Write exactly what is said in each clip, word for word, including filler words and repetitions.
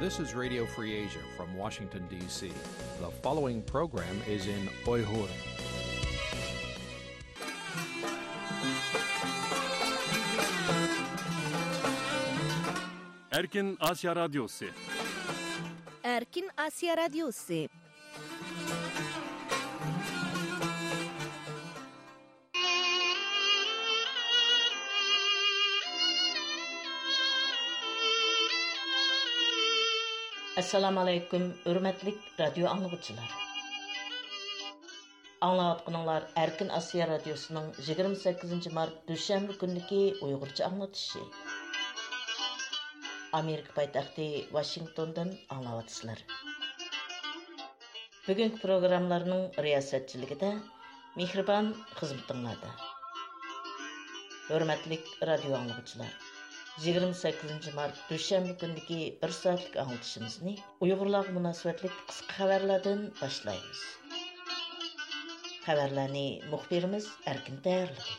This is Radio Free Asia from Washington, D C. The following program is in Uyghur. ئەركىن ئاسىيا رادىيوسى. ئەركىن ئاسىيا رادىيوسى. ئەسسالامۇ ئەلەيكۇم، ھۆرمەتلىك رادىيو ئاڭلىغۇچىلار. ئاڭلاۋاتقىنىڭلار ئەركىن ئاسىيا رادىيوسىنىڭ يىگىرمە سەككىزىنچى مارت دۈشەنبە كۈنىدىكى ئۇيغۇرچە ئاڭلىتىشى. ئامېرىكا پايتەختى ۋاشىنگتوندىن ئاڭلاۋاتىسىلەر. بۈگۈنكى پروگراممىلارنىڭ رىياسەتچىلىكىدە مېھرىبان خىزمىتىڭلاردا. ھۆرمەتلىك رادىيو ئاڭلىغۇچىلار، يىگىرمە سەككىزىنچى مارت دۈشەنبە كۈنىدىكى بىر سائەتلىك ئاڭلىتىشىمىزنى ئۇيغۇرلارغا مۇناسىۋەتلىك قىسقا خەۋەرلەردىن باشلايمىز. خەۋەرلەرنى مۇخبىرىمىز ئەركىن تەييارلىدى.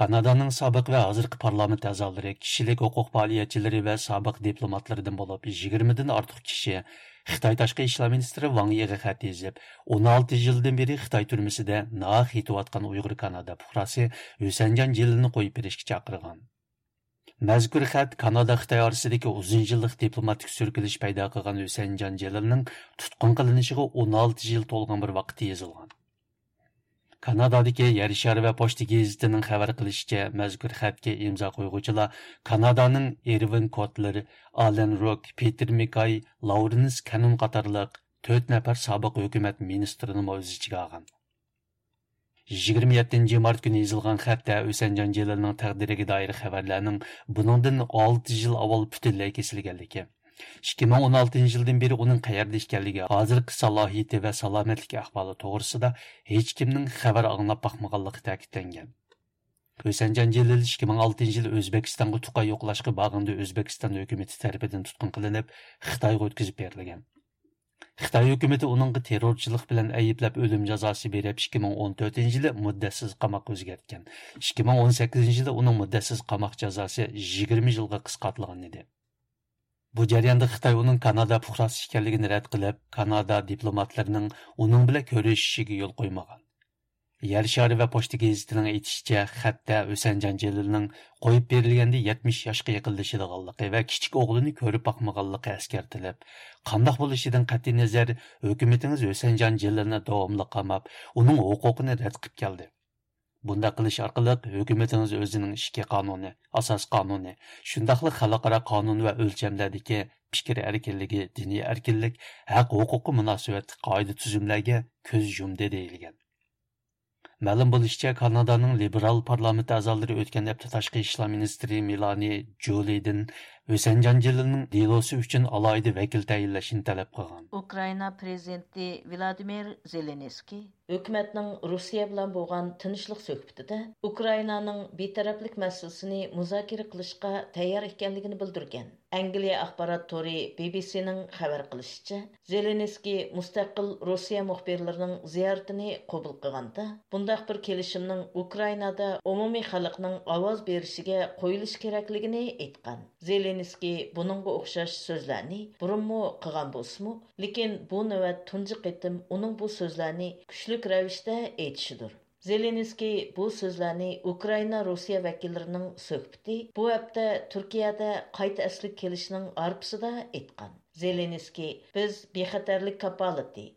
كانادانىڭ سابىق ۋە ھازىرقى پارلامېنت ئەزالىرى، كىشىلىك ھوقۇق پائالىيەتچىلىرى ۋە سابىق دىپلوماتلىرىدىن بولۇپ يىگىرمىدىن ئارتۇق كىشى خىتاي تاشقى ئىشلار مىنىستىرى ۋاڭ يىغا خەت يېزىپ، ئون ئالتە يىلدىن بېرى خىتاي تۈرمىسىدە ناھەق يېتىۋاتقان ئۇيغۇر كانادا پۇقراسى ھۈسەنجان جېلىلنى قويۇپ بېرىشكە چاقىرغان. مەزكۇر خەت كانادا خىتاي ئارىسىدىكى ئۇزۇن يىللىق دىپلوماتىك سۈركىلىش پەيدا قىلغان ھۈسەنجان جېلىلنىڭ تۇتقۇن قىلىنىشىغا ئون ئالتە يىل تولغان بىر ۋاقىتتا يېزىلغان. كانادادىكى يەر شارى ۋە پوچتا گېزىتىنىڭ خەۋەر قىلىشىچە، مەزكۇر خەتكە ئىمزا قويغۇچىلار كانادانىڭ ئېرۋىن كوتلېر، ئالەن روك، پېتېر مېكاي، لاۋرېنس كەنون قاتارلىق تۆت نەپەر سابىق ھۆكۈمەت مىنىستىرىنىمۇ ئۆز ئىچىگە ئالغان. يىگىرمە يەتتىنچى مارت كۈنى يېزىلغان خەتتە ھۈسەنجان جېلىلنىڭ تەقدىرىگە دائىر خەۋەرلەرنىڭ بۇنىڭدىن ئالتە يىل ئاۋۋال پۈتۈنلەي كېسىلگەنلىكى، ئىككى مىڭ ئون ئالتىنچى يىلدىن بېرى ئۇنىڭ قەيەردە ئىكەنلىكى، ھازىرقى سالاھىيىتى ۋە سالامەتلىك ئەھۋالى توغرىسىدا ھېچكىمنىڭ خەۋەر ئاڭلاپ باقمىغانلىقى تەكىتلەنگەن. ھۈسەنجان جېلىل ئىككى مىڭ ئالتىنچى يىل ئۆزبېكىستانغا تۇغقان يوقلاشقا بارغىنىدا ئۆزبېكىستان ھۆكۈمىتى تەرىپىدىن تۇتقۇن قىلىنىپ، خىتايغا ئۆتكۈزۈپ بېرىلگەن. خىتاي ھۆكۈمىتى ئۇنىڭغا تېررورچىلىق بىلەن ئەيىبلەپ ئۆلۈم جازاسى بېرىپ، ئىككى مىڭ ئون تۆتىنچى يىلى مۇددەتسىز قاماققا ئۆزگەرتكەن. ئىككى مىڭ ئون سەككىزىنچى يىلى ئۇنىڭ مۇددەتسىز قاماق جازاسى يىگىرمە يىلغا قىسقارتىلغان ئىدى. بۇ جەرياندا خىتاي ئۇنىڭ كانادا پۇقراسى ئىكەنلىكىنى رەت قىلىپ، كانادا دىپلوماتلىرىنىڭ ئۇنىڭ بىلەن كۆرۈشۈشىگە يول قويمىغان. يەر شارى ۋە پوچتا گېزىتىنىڭ ئېيتىشىچە، خەتتە ھۈسەنجان جېلىلنىڭ قويۇپ بېرىلگەندە يەتمىش ياشقا يېقىنلىشىدىغانلىقى ۋە كىچىك ئوغلىنى كۆرۈپ باقمىغانلىقى ئەسكەرتىلىپ، قانداق بولۇشىدىن قەتئىينەزەر، ھۆكۈمىتىڭىز ھۈسەنجان جېلىلنى داۋاملىق قاماپ، ئۇنىڭ ھوقۇقىنى رەت قىلىپ كەلدى. بۇنداق قىلىش ئارقىلىق ھۆكۈمىتىڭىز ئۆزىنىڭ ئىچكى قانۇنى، ئاساس قانۇنى، شۇنداقلا خەلقئارا قانۇن ۋە ئۆلچەملەردىكى پىكىر ئەركىنلىكى، دىنىي ئەركىنلىك، ھەق ھوقۇققا مۇناسىۋەتلىك قائىدە تۈزۈملەرگە كۆز يۇمدى دېيىلگەن. مەلۇم بولۇشىچە، كانادانىڭ لىبېرال پارلامېنت ئەزالىرى ئۆتكەن ھەپتە تاشقى ئىشلار مىنىستىرى مېلانى جۇلىدىن ھۈسەنجان جېلىلنىڭ دېلوسى ئۈچۈن ئالاھىدە ۋەكىل تەيىنلەشنى تەلەپ قىلغان. ئۇكرائىنا پرېزىدېنتى ۋلادىمىر زېلېنسكىي ھۆكۈمەتنىڭ روسىيە بىلەن بولغان تىنچلىق سۆھبىتىدە ئۇكرائىنانىڭ بىتەرەپلىك مەسىلىسىنى مۇزاكىرە قىلىشقا تەييار ئىكەنلىكىنى بىلدۈرگەن. ئەنگلىيە ئاخبارات تورى بى بى سىنىڭ خەۋەر قىلىشىچە، زېلېنسكىي مۇستەقىل روسىيە مۇخبىرلىرىنىڭ زىيارىتىنى قوبۇل قىلغاندا، بۇنداق بىر كېلىشىمنىڭ ئۇكرائىنادا ئومۇمىي خەلقنىڭ ئاۋاز بېرىشىگە قويۇلۇشى كېرەكلىكىنى ئېيتقان. زېلېنسكىي بۇنىڭغا ئوخشاش سۆزلەرنى بۇرۇنمۇ قىلغان بولسىمۇ، لېكىن بۇ نۆۋەت تۇنجى قېتىم ئۇنىڭ بۇ سۆزلەرنى كۈچلۈك رەۋىشتە ئېيتىشىدۇر. زېلېنسكىي بۇ سۆزلەرنى ئۇكرائىنا روسىيە ۋەكىللىرىنىڭ سۆھبىتى بۇ ھەپتە تۈركىيەدە قايتا ئەسلىگە كېلىشنىڭ ھارپىسىدا ئېيتقان. زېلېنسكىي، بىز بىخەتەرلىك كاپالىتى،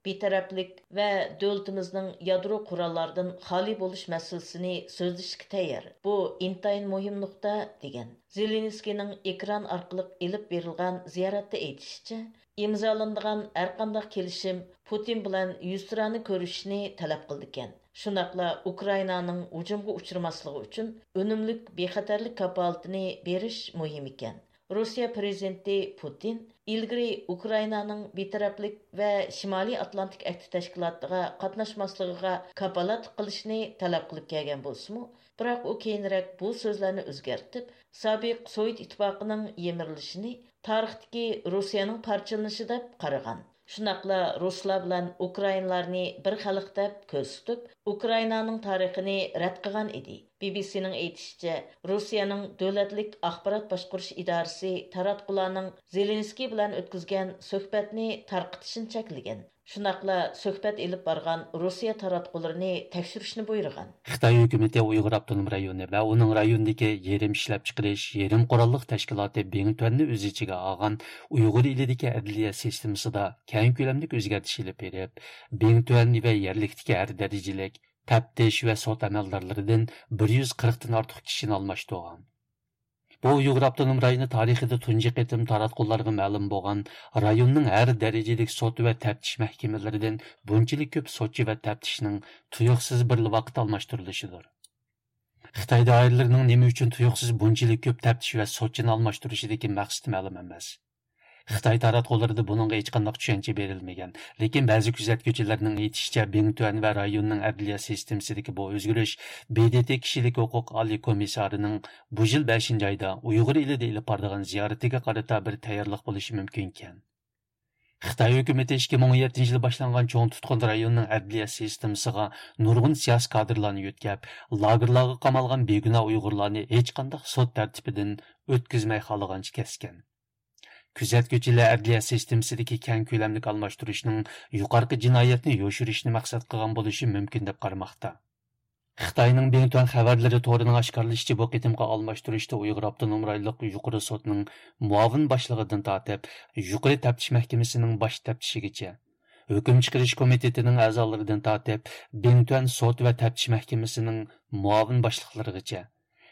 بىتەرەپلىك ۋە دۆلىتىمىزنىڭ يادرو قوراللاردىن خالىي بولۇش مەسىلىسىنى سۆزلىشىشكە تەييار. بۇ ئىنتايىن مۇھىم نۇقتا، دېگەن. زېلېنسكىينىڭ ئېكران ئارقىلىق ئېلىپ بېرىلغان زىيارەتتە ئېيتىشىچە، ئىمزالىنىدىغان ھەرقانداق كېلىشىم پۇتىن بىلەن يۈزتۇرانە كۆرۈشۈشنى تەلەپ قىلىدىكەن. شۇنداقلا ئۇكرائىنانىڭ ھۇجۇمغا ئۇچرىماسلىقى ئۈچۈن ئۈنۈملۈك بىخەتەرلىك كاپالىتىنى بېرىش مۇھىم ئىكەن. روسىيە پىرېزىدېنتى پۇتىن ئىلگىرى ئۇكرائىنانىڭ بىتەرەپلىك ۋە شىمالىي ئاتلانتىك ئەھدى تەشكىلاتىغا قاتناشماسلىقىغا كاپالەتلىك قىلىشنى تەلەپ قىلىپ كەلگەن بولسىمۇ، بىراق ئۇ كېيىنرەك بۇ سۆزلەرنى ئۆزگەرتىپ، سابىق سوۋېت ئىتتىپاقىنىڭ يىمىرىلىشىنى تارىختىكى روسىيەنىڭ پارچىلىنىشى دەپ قارىغان. شۇنداقلا رۇسلار بىلەن ئۇكرائىنلارنى بىر خەلق دەپ كۆرسىتىپ، ئۇكرائىنانىڭ تارىخىنى رەت قىلغان ئىدى. بى بى سىنىڭ ئېيتىشىچە، روسىيەنىڭ دۆلەتلىك ئاخبارات باشقۇرۇش ئىدارىسى تاراتقۇلارنىڭ زېلېنسكىي بىلەن ئۆتكۈزگەن سۆھبەتنى تارقىتىشنى چەكلىگەن. شۇنداقلا سۆھبەت ئېلىپ بارغان روسىيە تاراتقۇلىرىنى تەكشۈرۈشنى بۇيرۇغان. خىتاي ھۆكۈمىتى ئۇيغۇر ئاپتونوم رايونى ۋە ئۇنىڭ رايونىدىكى يېرىم ئىشلەپچىقىرىش، يېرىم قوراللىق تەشكىلاتى بىڭتۈەننى ئۆز ئىچىگە ئالغان ئۇيغۇر ئېلىدىكى ئەدلىيە سىستېمىسىدا كەڭ كۆلەملىك ئۆزگەرتىش ئېلىپ بېرىپ، بىڭتۈەن ۋە يەرلىكتىكى ھەر دەرىجىلىك تەپتىش ۋە سوت ئەمەلدارلىرىدىن بىر يۈز قىرىقتىن ئارتۇق كىشىنى ئالماشتۇرغان. بۇ ئۇيغۇر ئاپتونوم رايونى تارىخىدا تۇنجى قېتىم تاراتقۇلارغا مەلۇم بولغان رايوننىڭ ھەر دەرىجىلىك سوت ۋە تەپتىش مەھكىمىلىرىدىن بۇنچىلىك كۆپ سوتچى ۋە تەپتىشنىڭ تۇيۇقسىز بىرلا ۋاقىت ئالماشتۇرۇلۇشىدۇر. خىتاي دائىرىلىرىنىڭ نېمە ئۈچۈن تۇيۇقسىز بۇنچىلىك كۆپ تەپتىش ۋە سوتچىنى ئالماشتۇرۇشىدىكى مەقسىتى مەلۇم ئەمەس. خىتاي تاراتقۇلىرىدا بۇنىڭغا ھېچقانداق چۈشەنچە بېرىلمىگەن. لېكىن بەزى كۆزەتكۈچىلەرنىڭ ئېيتىشىچە، بىڭتۈەن ۋە رايوننىڭ ئەدلىيە سىستېمىسىدىكى بۇ ئۆزگىرىش ب د ت كىشىلىك ھوقۇق ئالىي كومىسسارىنىڭ بۇ يىل بەشىنچى ئايدا ئۇيغۇر ئېلىدا ئېلىپ بارىدىغان زىيارىتىگە قارىتا بىر تەييارلىق بولۇشى مۇمكىنكەن. خىتاي ھۆكۈمىتى ئىككى مىڭ ئون يەتتىنچى يىلى باشلانغان چوڭ تۇتقۇن رايونىنىڭ ئەدلىيە سىستېمىسىغا نۇرغۇن سىياسىي كادىرلارنى يۆتكەپ، لاگېرلارغا قامالغان بىگۇناھ ئۇيغۇرلارنى ھېچقانداق سوت تەرتىپىدىن ئۆتكۈزمەي خالىغانچە كەسكەن. كۆزەتكۈچىلەر ئەدلىيە سىستېمىسىدىكى كەڭ كۆلەملىك ئالماشتۇرۇشنىڭ يۇقىرىقى جىنايەتنى يوشۇرۇشنى مەقسەت قىلغان بولۇشى مۇمكىن دەپ قارىماقتا. خىتاينىڭ بىڭتۈەن خەۋەرلىرى تورىنىڭ ئاشكارىلىشىچە، بۇ قېتىمقى ئالماشتۇرۇشتا ئۇيغۇر ئاپتونوم رايونلۇق يۇقىرى سوتنىڭ مۇئاۋىن باشلىقىدىن تارتىپ، يۇقىرى تەپتىش مەھكىمىسىنىڭ باش تەپتىشىگىچە، ھۆكۈم چىقىرىش كومىتېتىنىڭ ئەزالىرىدىن تارتىپ، بىڭتۈەن سوت ۋە تەپتىش مەھكىمىسىنىڭ مۇئاۋىن باشلىقلىرىغىچە،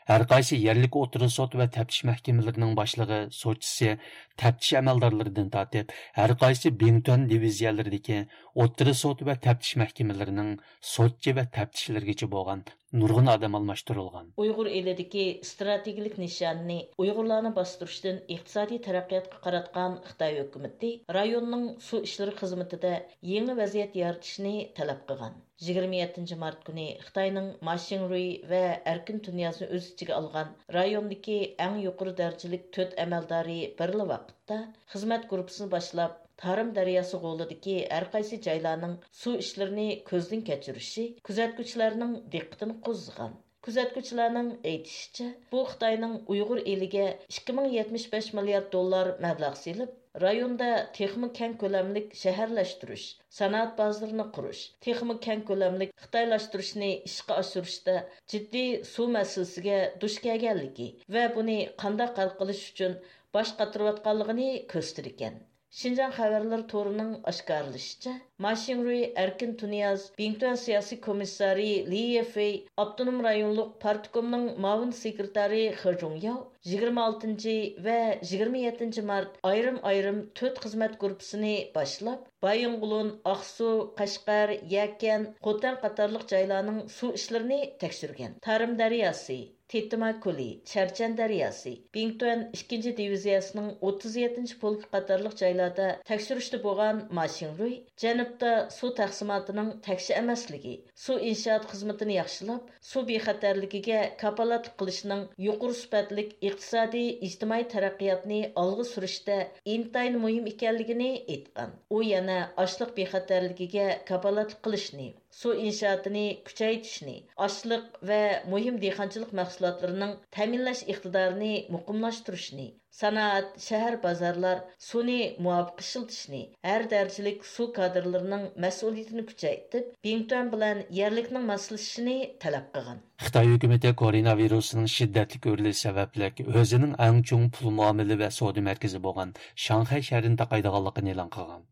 ھەرقايسى يەرلىك ئوتتۇرا سوت ۋە تەپتىش مەھكىمىلىرىنىڭ باشلىقى، سوتچىسى، تەپتىش ئەمەلدارلىرىدىن تارتىپ، ھەرقايسى بىڭتۈەن دىۋىزىيەلىرىدىكى ئوتتۇرا سوت ۋە تەپتىش مەھكىمىلىرىنىڭ سوتچى ۋە تەپتىشلىرىگىچە بولغان نۇرغۇن ئادەم ئالماشتۇرۇلغان. ئۇيغۇر ئېلىدىكى ئىستراتېگىيەلىك نىشانىنى ئۇيغۇرلارنى باستۇرۇشتىن ئىقتىسادىي تەرەققىياتقا قاراتقان خىتاي ھۆكۈمىتى رايوننىڭ سۇ ئىشلىرى خىزمىتىدە يېڭى ۋەزىيەت يارىتىشنى تەلەپ قىلغان. يىگىرمە يەتتىنچى مارت كۈنى خىتاينىڭ ما شىڭرۇي ۋە ئەركىن تۇنىيازنى ئۆز ئىچىگە ئالغان رايوندىكى ئەڭ يۇقىرى دەرىجىلىك تۆت ئەمەلدارى بىرلا ۋاقىتتا خىزمەت گۇرۇپپىسىنى باشلاپ، تارىم دەرياسى غولىدىكى ھەرقايسى جايلارنىڭ سۇ ئىشلىرىنى كۆزدىن كەچۈرۈشى كۆزەتكۈچىلەرنىڭ دىققىتىنى قوزغىغان. كۆزەتكۈچىلەرنىڭ ئېيتىشىچە، بۇ خىتاينىڭ ئۇيغۇر ئېلىگە ئىككى مىڭ يەتمىش بەش مىليارد دوللار مەبلەغ سېلىپ، رايوندا تېخىمۇ كەڭ كۆلەملىك شەھەرلەشتۈرۈش، سانائەت بازىرىنى قۇرۇش، تېخىمۇ كەڭ كۆلەملىك خىتايلاشتۇرۇشنى ئىشقا ئاشۇرۇشتا جىددىي سۇ مەسىلىسىگە دۇچ كەلگەنلىكى ۋە بۇنى قانداق ھەل قىلىش ئۈچۈن باش قاتۇرۇۋاتقانلىقىنى كۆرسىتىدىكەن. شىنجاڭ خەۋەرلىرى تورىنىڭ ئاشكارىلىشىچە، ما شىڭرۇي، ئەركىن تۇنىياز، بىڭتۈەن سىياسىي كومىسسارى لى يېفېي، ئاپتونوم رايونلۇق پارتكومنىڭ مۇئاۋىن سېكرېتارى خې جۇڭياۋ يىگىرمە ئالتىنچى ۋە يىگىرمە يەتتىنچى مارت ئايرىم-ئايرىم تۆت خىزمەت گۇرۇپپىسىنى باشلاپ، بايىنغولىن، ئاقسۇ، قەشقەر، يەكەن، خوتەن قاتارلىق جايلارنىڭ سۇ ئىشلىرىنى تەكشۈرگەن. تارىم دەرياسى، تېتىما كۆلى، چەرچەن دەرياسى، بىڭتۈەن ئىككىنچى دىۋىزىيەسىنىڭ ئوتتۇز يەتتىنچى پولكى قاتارلىق جايلاردا تەكشۈرۈشتە بولغان ما شىڭرۇي جەنۇبتا سۇ تەقسىماتىنىڭ تەكشى ئەمەسلىكى، سۇ ئىنشائات خىزمىتىنى ياخشىلاپ، سۇ بىخەتەرلىكىگە كاپالەتلىك قىلىشنىڭ يۇقىرى سۈپەتلىك ئىقتىسادىي، ئىجتىمائىي تەرەققىياتنى ئالغا سۈرۈشتە ئىنتايىن مۇھىم ئىكەنلىكىنى ئېيتقان. ئۇ يەنە ئاشلىق بىخەتەرلىكىگە كاپالەتلىك قىلىشنى، سۇ ئىنشائاتىنى كۈچەيتىشنى، ئاشلىق ۋە مۇھىم دېھقانچىلىق مەھسۇلاتلىرىنىڭ تەمىنلەش ئىقتىدارىنى مۇقىملاشتۇرۇشنى، سانائەت، شەھەر، بازارلار سۇنى مۇۋاپىق ئىشلىتىشنى، ھەر دەرىجىلىك سۇ كادىرلىرىنىڭ مەسئۇلىيىتىنى كۈچەيتىپ، بىڭتۈەن بىلەن يەرلىكنىڭ ماسلىشىشىنى تەلەپ قىلغان. خىتاي ھۆكۈمىتى كوروناۋىرۇسنىڭ شىددەتلىك ئۆرلىشى سەۋەبلىك، ئۆزىنىڭ ئەڭ چوڭ پۇل مۇئامىلە ۋە سودا مەركىزى بولغان شاڭخەي شەھىرىنى تاقايدىغانلىقىنى ئېلان قىلغان.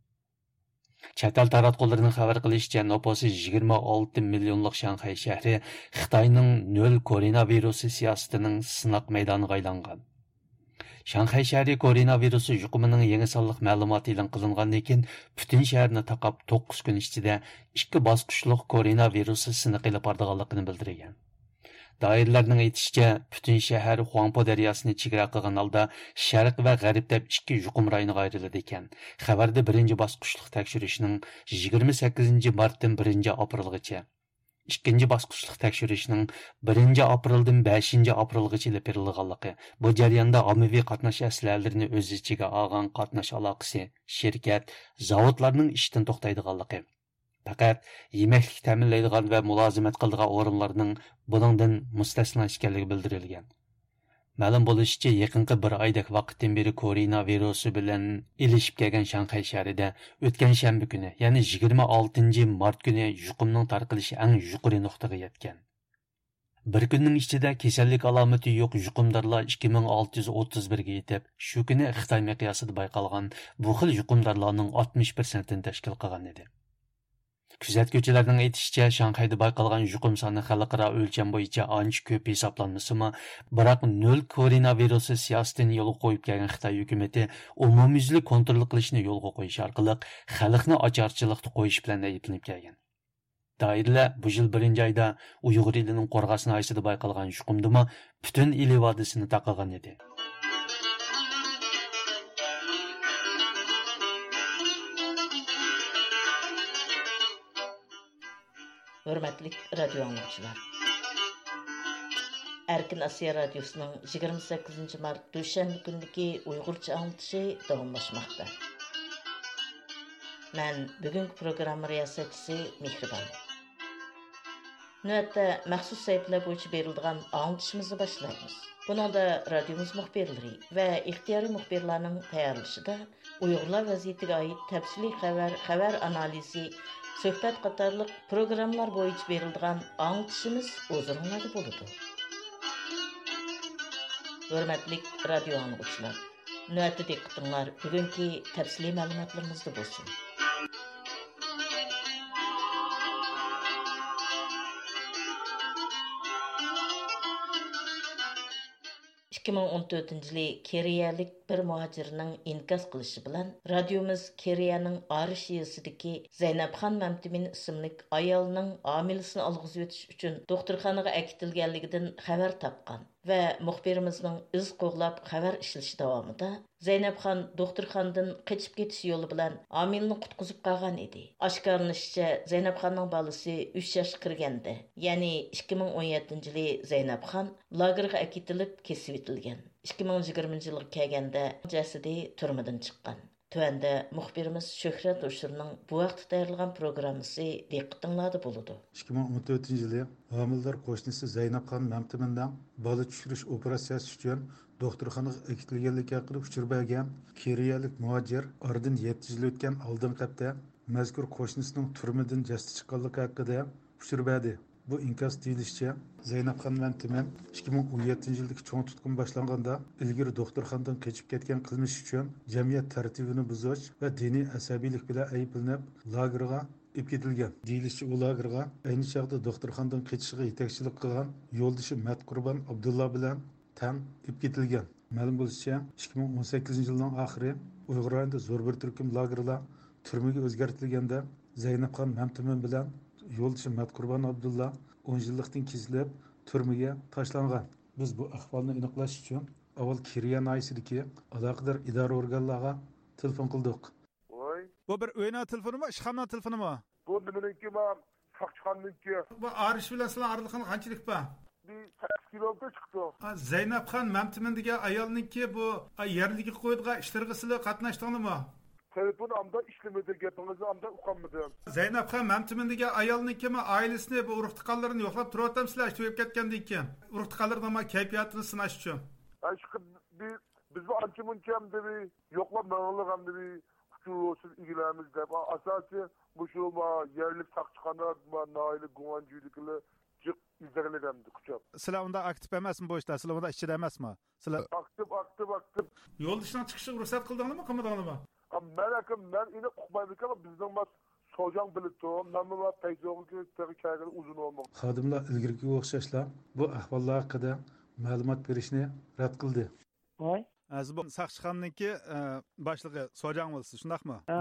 چەت ئەل تاراتقۇلىرىنىڭ خەۋەر قىلىشىچە، نوپۇسى يىگىرمە ئالتە مىليونلۇق شاڭخەي شەھىرى خىتاينىڭ نۆل كوروناۋىرۇسى سىياسىتىنىڭ سىناق مەيدانىغا ئايلانغان. شاڭخەي شەھىرى كوروناۋىرۇس يۇقۇمىنىڭ يېڭى سانلىق مەلۇماتى ئېلان قىلىنغاندىن كېيىن، پۈتۈن شەھەرنى تاقاپ، توققۇز كۈن ئىچىدە ئىككى باسقۇچلۇق كوروناۋىرۇس سىنىقى ئېلىپ بارىدىغانلىقىنى بىلدۈرگەن. دائىرىلەرنىڭ ئېيتىشىچە، پۈتۈن شەھەر خۇاڭپو دەرياسىنى چېگرا قىلغان ھالدا شەرق ۋە غەرب دەپ ئىككى يۇقۇم رايونىغا ئايرىلىدىكەن. خەۋەردە بىرىنچى باسقۇچلۇق تەكشۈرۈشنىڭ يىگىرمە سەككىزىنچى مارتتىن بىرىنچى ئاپرېلغىچە، ئىككىنچى باسقۇچلۇق تەكشۈرۈشنىڭ بىرىنچى ئاپرېلدىن بەشىنچى ئاپرېلغىچە ئېلىپ بېرىلغانلىقى، بۇ جەرياندا ئاممىۋى قاتناش ئەسلىھەلىرىنى ئۆز ئىچىگە ئالغان قاتناش ئالاقىسى، شىركەت، زاۋۇتلارنىڭ ئىشتىن توختايدىغانلىقى، پەقەت يېمەكلىك تەمىنلەيدىغان ۋە مۇلازىمەت قىلىدىغان ئورۇنلارنىڭ بۇنىڭدىن مۇستەسنا ئىكەنلىكى بىلدۈرۈلگەن. مەلۇم بولۇشىچە، يېقىنقى بىر ئايدەك ۋاقىتتىن بېرى كورونا ۋىرۇسى بىلەن ئېلىشىپ كەلگەن شاڭخەي شەھىرىدە ئۆتكەن شەنبە كۈنى، يەنى يىگىرمە ئالتىنچى مارت كۈنى يۇقۇمنىڭ تارقىلىشى ئەڭ يۇقىرى نۇقتىغا يەتكەن. بىر كۈننىڭ ئىچىدە كېسەللىك ئالامىتى يوق يۇقۇمدارلار ئىككى مىڭ ئالتە يۈز ئوتتۇز بىرگە يېتىپ، شۇ كۈنى خىتاي مىقياسىدا بايقالغان بۇ خىل يۇقۇمدارلارنىڭ ئاتمىش پىرسەنتىنى تەشكىل قىلغان ئىدى. كۆزەتكۈچىلەرنىڭ ئېيتىشىچە، شاڭخەيدە بايقالغان يۇقۇم سانى خەلقئارا ئۆلچەم بويىچە ئانچە كۆپ ھېسابلانمىسىمۇ، بىراق نۆل كورونا ۋىرۇسى سىياسىتىنى يولغا قويۇپ كەلگەن خىتاي ھۆكۈمىتى ئومۇميۈزلۈك كونترول قىلىشنى يولغا قويۇش ئارقىلىق خەلقنى ئاچارچىلىقتا قويۇش بىلەن ئەيىبلىنىپ كەلگەن. دائىرىلەر بۇ يىل بىرىنچى ئايدا ئۇيغۇر ئېلىنىڭ قورغاس ناھىيەسىدە بايقالغان يۇقۇمدىمۇ پۈتۈن ئىلى ۋادىسىنى تاقىغان ئىدى. ھۆرمەتلىك رادىيو ئاڭلىغۇچىلار! ئەركىن ئاسىيا رادىيوسىنىڭ يىگىرمە سەككىزىنچى مارت دۈشەنبە كۈنىدىكى ئۇيغۇرچە ئاڭلىتىشى داۋاملاشماقتا. مەن بۈگۈنكى پروگرامما رىياسەتچىسى مېھرىبان. نۆۋەتتە مەخسۇس سەھىپىلەر بويىچە بېرىلىدىغان ئاڭلىتىشىمىزنى باشلايمىز. بۇنىڭدا رادىيومىز مۇخبىرلىرى ۋە ئىختىيارىي مۇخبىرلارنىڭ تەييارلىشىدا ئۇيغۇرلار ۋەزىيىتىگە ئائىت تەپسىلىي خەۋەر، خەۋەر ئانالىزى، سۆھبەت قاتارلىق پروگراممىلار بويىچە بېرىلىدىغان ئاڭلىتىشىمىز ھۇزۇرۇڭلاردا بولىدۇ. ھۆرمەتلىك رادىيو ئاڭلىغۇچىلار! نۆۋەتتە دىققىتىڭلار بۈگۈنكى تەپسىلىي مەلۇماتلىرىمىزدا بولسۇن. ئىككى مىڭ ئون تۆتىنچى يىلى كېرىيەلىك بىر مۇھاجىرنىڭ ئىنكاس قىلىشى بىلەن، رادىيومىز كېرىيەنىڭ ئارىش يېزىسىدىكى زەينەپخان مەمتىمىن ئىسىملىك ئايالنىڭ ھامىلىسىنى ئالغۇزۇۋېتىش ئۈچۈن دوختۇرخانىغا ئەكېتىلگەنلىكىدىن خەۋەر تاپقان ۋە مۇخبىرىمىزنىڭ ئىز قوغلاپ خەۋەر ئىشلىشى داۋامىدا، زەينەپخان دوختۇرخانىدىن قېچىپ كېتىش يولى بىلەن ھامىلىنى قۇتقۇزۇپ قالغان ئىدى. ئاشكارىلىنىشىچە، زەينەپخاننىڭ بالىسى ئۈچ ياشقا كىرگەندە، يەنى ئىككى مىڭ ئون يەتتىنچى يىلى زەينەپخان لاگېرغا ئەكېتىلىپ كېسىۋېتىلگەن. ئىككى مىڭ يىگىرمىنچى يىلغا كەلگەندە جەسىدى تۈرمىدىن چىققان. تۆۋەندە مۇخبىرىمىز شۆھرەت ھوشۇرنىڭ بۇ ھەقتە تەييارلىغان پروگراممىسى دىققىتىڭلاردا بولىدۇ. ئىككى مىڭ ئون تۆتىنچى يىلى ھامىلىدار قوشنىسى زەينەپخان مەمتىمىننىڭ بالا چۈشۈرۈش ئوپېراتسىيەسى ئۈچۈن دوختۇرخانىغا ئەكېتىلگەنلىكى ھەققىدە ئۇچۇر بەرگەن كېرىيەلىك مۇھاجىر ئارىدىن يەتتە يىل ئۆتكەن ئالدىنقى ھەپتە مەزكۇر قوشنىسىنىڭ تۈرمىدىن جەسىتى چىققانلىقى ھەققىدە ئۇچۇر بەردى. بۇ ئىنكاس دېيىلىشىچە، زەينەپخان مەمتىمىن ئىككى مىڭ ئون يەتتىنچى يىلدىكى چوڭ تۇتقۇن باشلانغاندا، ئىلگىرى دوختۇرخانىدىن قېچىپ كەتكەن قىلمىشى ئۈچۈن جەمئىيەت تەرتىپىنى بۇزۇش ۋە دىنىي ئەسەبىيلىك بىلەن ئەيىبلىنىپ، لاگېرغا ئېلىپ كېتىلگەن. دېيىلىشىچە، ئۇ لاگېرغا ئەينى چاغدا دوختۇرخانىدىن قېچىشىغا يېتەكچىلىك قىلغان يولدىشى مەتقۇربان ئابدۇللا بىلەن تەڭ ئېلىپ كېتىلگەن. مەلۇم بولۇشىچە، ئىككى مىڭ ئون سەككىزىنچى يىلنىڭ ئاخىرى ئۇيغۇر رايونىدا زور بىر تۈركۈم لاگېرلار تۈرمىگە ئۆزگەرتىلگەندە، زەينەپخان مەمتىمىن بىلەن يولدىشى مەتقۇربان ئابدۇللا ئون يىللىقتىن كېسىلىپ، تۈرمىگە تاشلانغان. بىز بۇ ئەھۋالنى ئېنىقلاش ئۈچۈن ئاۋۋال كېرىيە ناھىيەسىدىكى ئالاقىدار ئىدارە ئورگانلارغا تېلېفون قىلدۇق. ۋاي. بۇ بىر ئۆينىڭ تېلېفونىمۇ، ئىشخانىنىڭ تېلېفونىمۇ؟ بۇ نېمىنىڭكى، ما، ساقچىخانىنىڭكى. بۇ ئارىش بىلەن سىلەر ئارىلىقىڭلار قانچىلىك بار؟ بىر سەككىز كىلومېتىر چىقىدۇ. ئا، زەينەپخان مەمتىمىن دېگەن ئايالنىڭكى بۇ، ئا، يەرلىككە قويىدىغان ئىشلىرىغا سىلەر قاتناشتىڭلارمۇ؟ تېلېفون ئامدا ئىشلىمىدى، گېپىڭىزنى ئامدا ئۇقالمىدىم. زەينەپخان مەمتىمىن دېگەن ئايالنىڭكىمۇ ئائىلىسىنى، بۇ ئۇرۇق تۇغقانلىرىنى يوقلاپ تۇرۇۋاتامسىلەر، ئىشتە ئۆلۈپ كەتكەندىن كېيىن؟ ئۇرۇق تۇغقانلىرىنىڭ كەيپىياتىنى سىناش ئۈچۈن. ھە، ئىشقىلىپ، بىز، بىزمۇ ئانچە مۇنچە ئەمدى بىر يوقلاپ مېڭىڭلار، ئەمدى بىر ئۇچۇر بولسۇن ئىگىلەرمىز دەپ، ئاساسىي مۇشۇ ما يەرلىك ساقچىخانا، ما ناھىيەلىك گۇڭئەنجۈيدىكىلەر جىق ئىزدەڭلىگەندى قۇچاپ. سىلەر ئۇنداق ئاكتىپ ئەمەسمۇ بۇ ئىشتا؟ سىلەر ئۇنداق ئىچىدە ئەمەسمۇ؟ سىلەر ئاكتىپ، ئاكتىپ، ئاكتىپ. يولدىشىنىڭ چىقىشىغا رۇخسەت قىلدىڭلارمۇ، قىلمىدىڭلارمۇ؟ ئا، مەن ئاكا، مەن ئېنىق ئۇقمايمەنكەن، بىزنىڭ ما سوجاڭ بىلىدۇ. مەنمۇ ما پەيزوغا تېخى كەلگىلى ئۇزۇن بولمىغان. خادىملار ئىلگىرىكىگە ئوخشاشلا بۇ ئەھۋاللار ھەققىدە مەلۇمات بېرىشنى رەت قىلدى. ۋاي. ھە، سىز بۇ ساقچىخانىنىڭكى، ئە، باشلىقى، سوجاڭ بولىسىز، شۇنداقمۇ؟ ھە.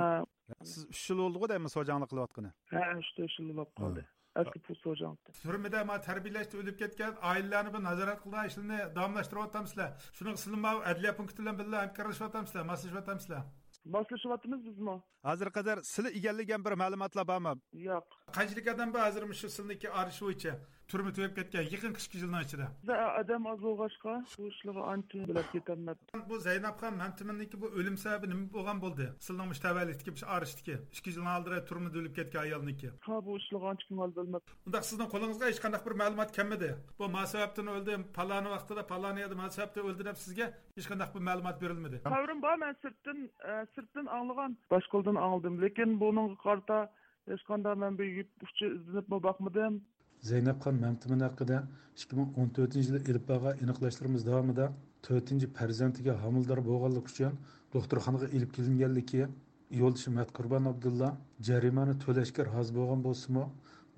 سىز ئۈچ يىل بولدىغۇ دەيمەن سوجاڭلىق قىلىۋاتقىنى؟ ھە، ئۈچ، تۆت يىل بولۇپ قالدى. ھە. ئەسلى پۇل سوجاڭلىقتا. تۈرمىدە ما تەربىيەلەشتە ئۆلۈپ كەتكەن ئائىلىلەرنى بۇ نازارەت قىلىدىغان ئىشلارنى داۋاملاشتۇرۇۋاتامسىلەر؟ شۇنىڭغا سىلەر ما ئەدلىيە پونكىتى بىلەن بىللە ھەمكارلىشىۋاتامسىلەر، ماسلىشىۋاتامسىلەر؟ ماسلىشىۋاتىمىز بىزمۇ. ھازىرغا قەدەر سىلە ئىگىلىگەن بىر مەلۇماتلار بارمۇ؟ ياق. قانچىلىك ئادەم بار ھازىر مۇشۇ سىلىنىڭكى ئارىشى بويىچە تۈرمە تۈگەپ كەتكەن يېقىنقى ئىككى يىلنىڭ ئىچىدە؟ ئادەم ئاز بولغاچقا، بۇ ئىشلارغا ئانچە بىلىپ كېتەلمەپتۇ. بۇ زەينەپخان مەمتىمىننىڭكى بۇ ئۆلۈم سەۋەبى نېمە بولغان بولدى؟ سىلىنىڭ مۇشۇ تەۋەلىكتىكى، مۇشۇ ئارىشتىكى ئىككى يىلنىڭ ئالدىدا تۈرمىدە ئۆلۈپ كەتكەن ئايالنىڭكى. ھا، بۇ ئىشلارغا ئانچە كۆڭۈل بۆلمەپتۇ. ئۇنداق سىزنىڭ قولىڭىزغا ھېچقانداق بىر مەلۇمات كەلمىدى؟ بۇ ما سەۋەبتىن ئۆلدى، پالانى ۋاقتىدا، پالانى يەردە ما سەۋەبتىن ئۆلدى دەپ سىزگە ھېچقانداق بىر مەلۇمات بېرىلمىدى؟ خەۋىرىم بار، مەن سىرتتىن، ئە، سىرتتىن ئاڭلىغان، باشقىلاردىن ئاڭلىدىم. لېكىن بۇنىڭغا قارىتا ھېچقانداق مەن بىر يىپ ئۇچى ئىزدىنىپمۇ باقمىدىم. زەينەپخان مەمتىمىن ھەققىدە ئىككى مىڭ ئون تۆتىنچى يىلى ئېلىپ بارغان ئېنىقلاشلىرىمىز داۋامىدا تۆتىنچى پەرزەنتىگە ھامىلىدار بولغانلىقى ئۈچۈن دوختۇرخانىغا ئېلىپ كېلىنگەنلىكى، يولدىشى مەتقۇربان ئابدۇللا جەرىمانە تۆلەشكە رازى بولغان بولسىمۇ،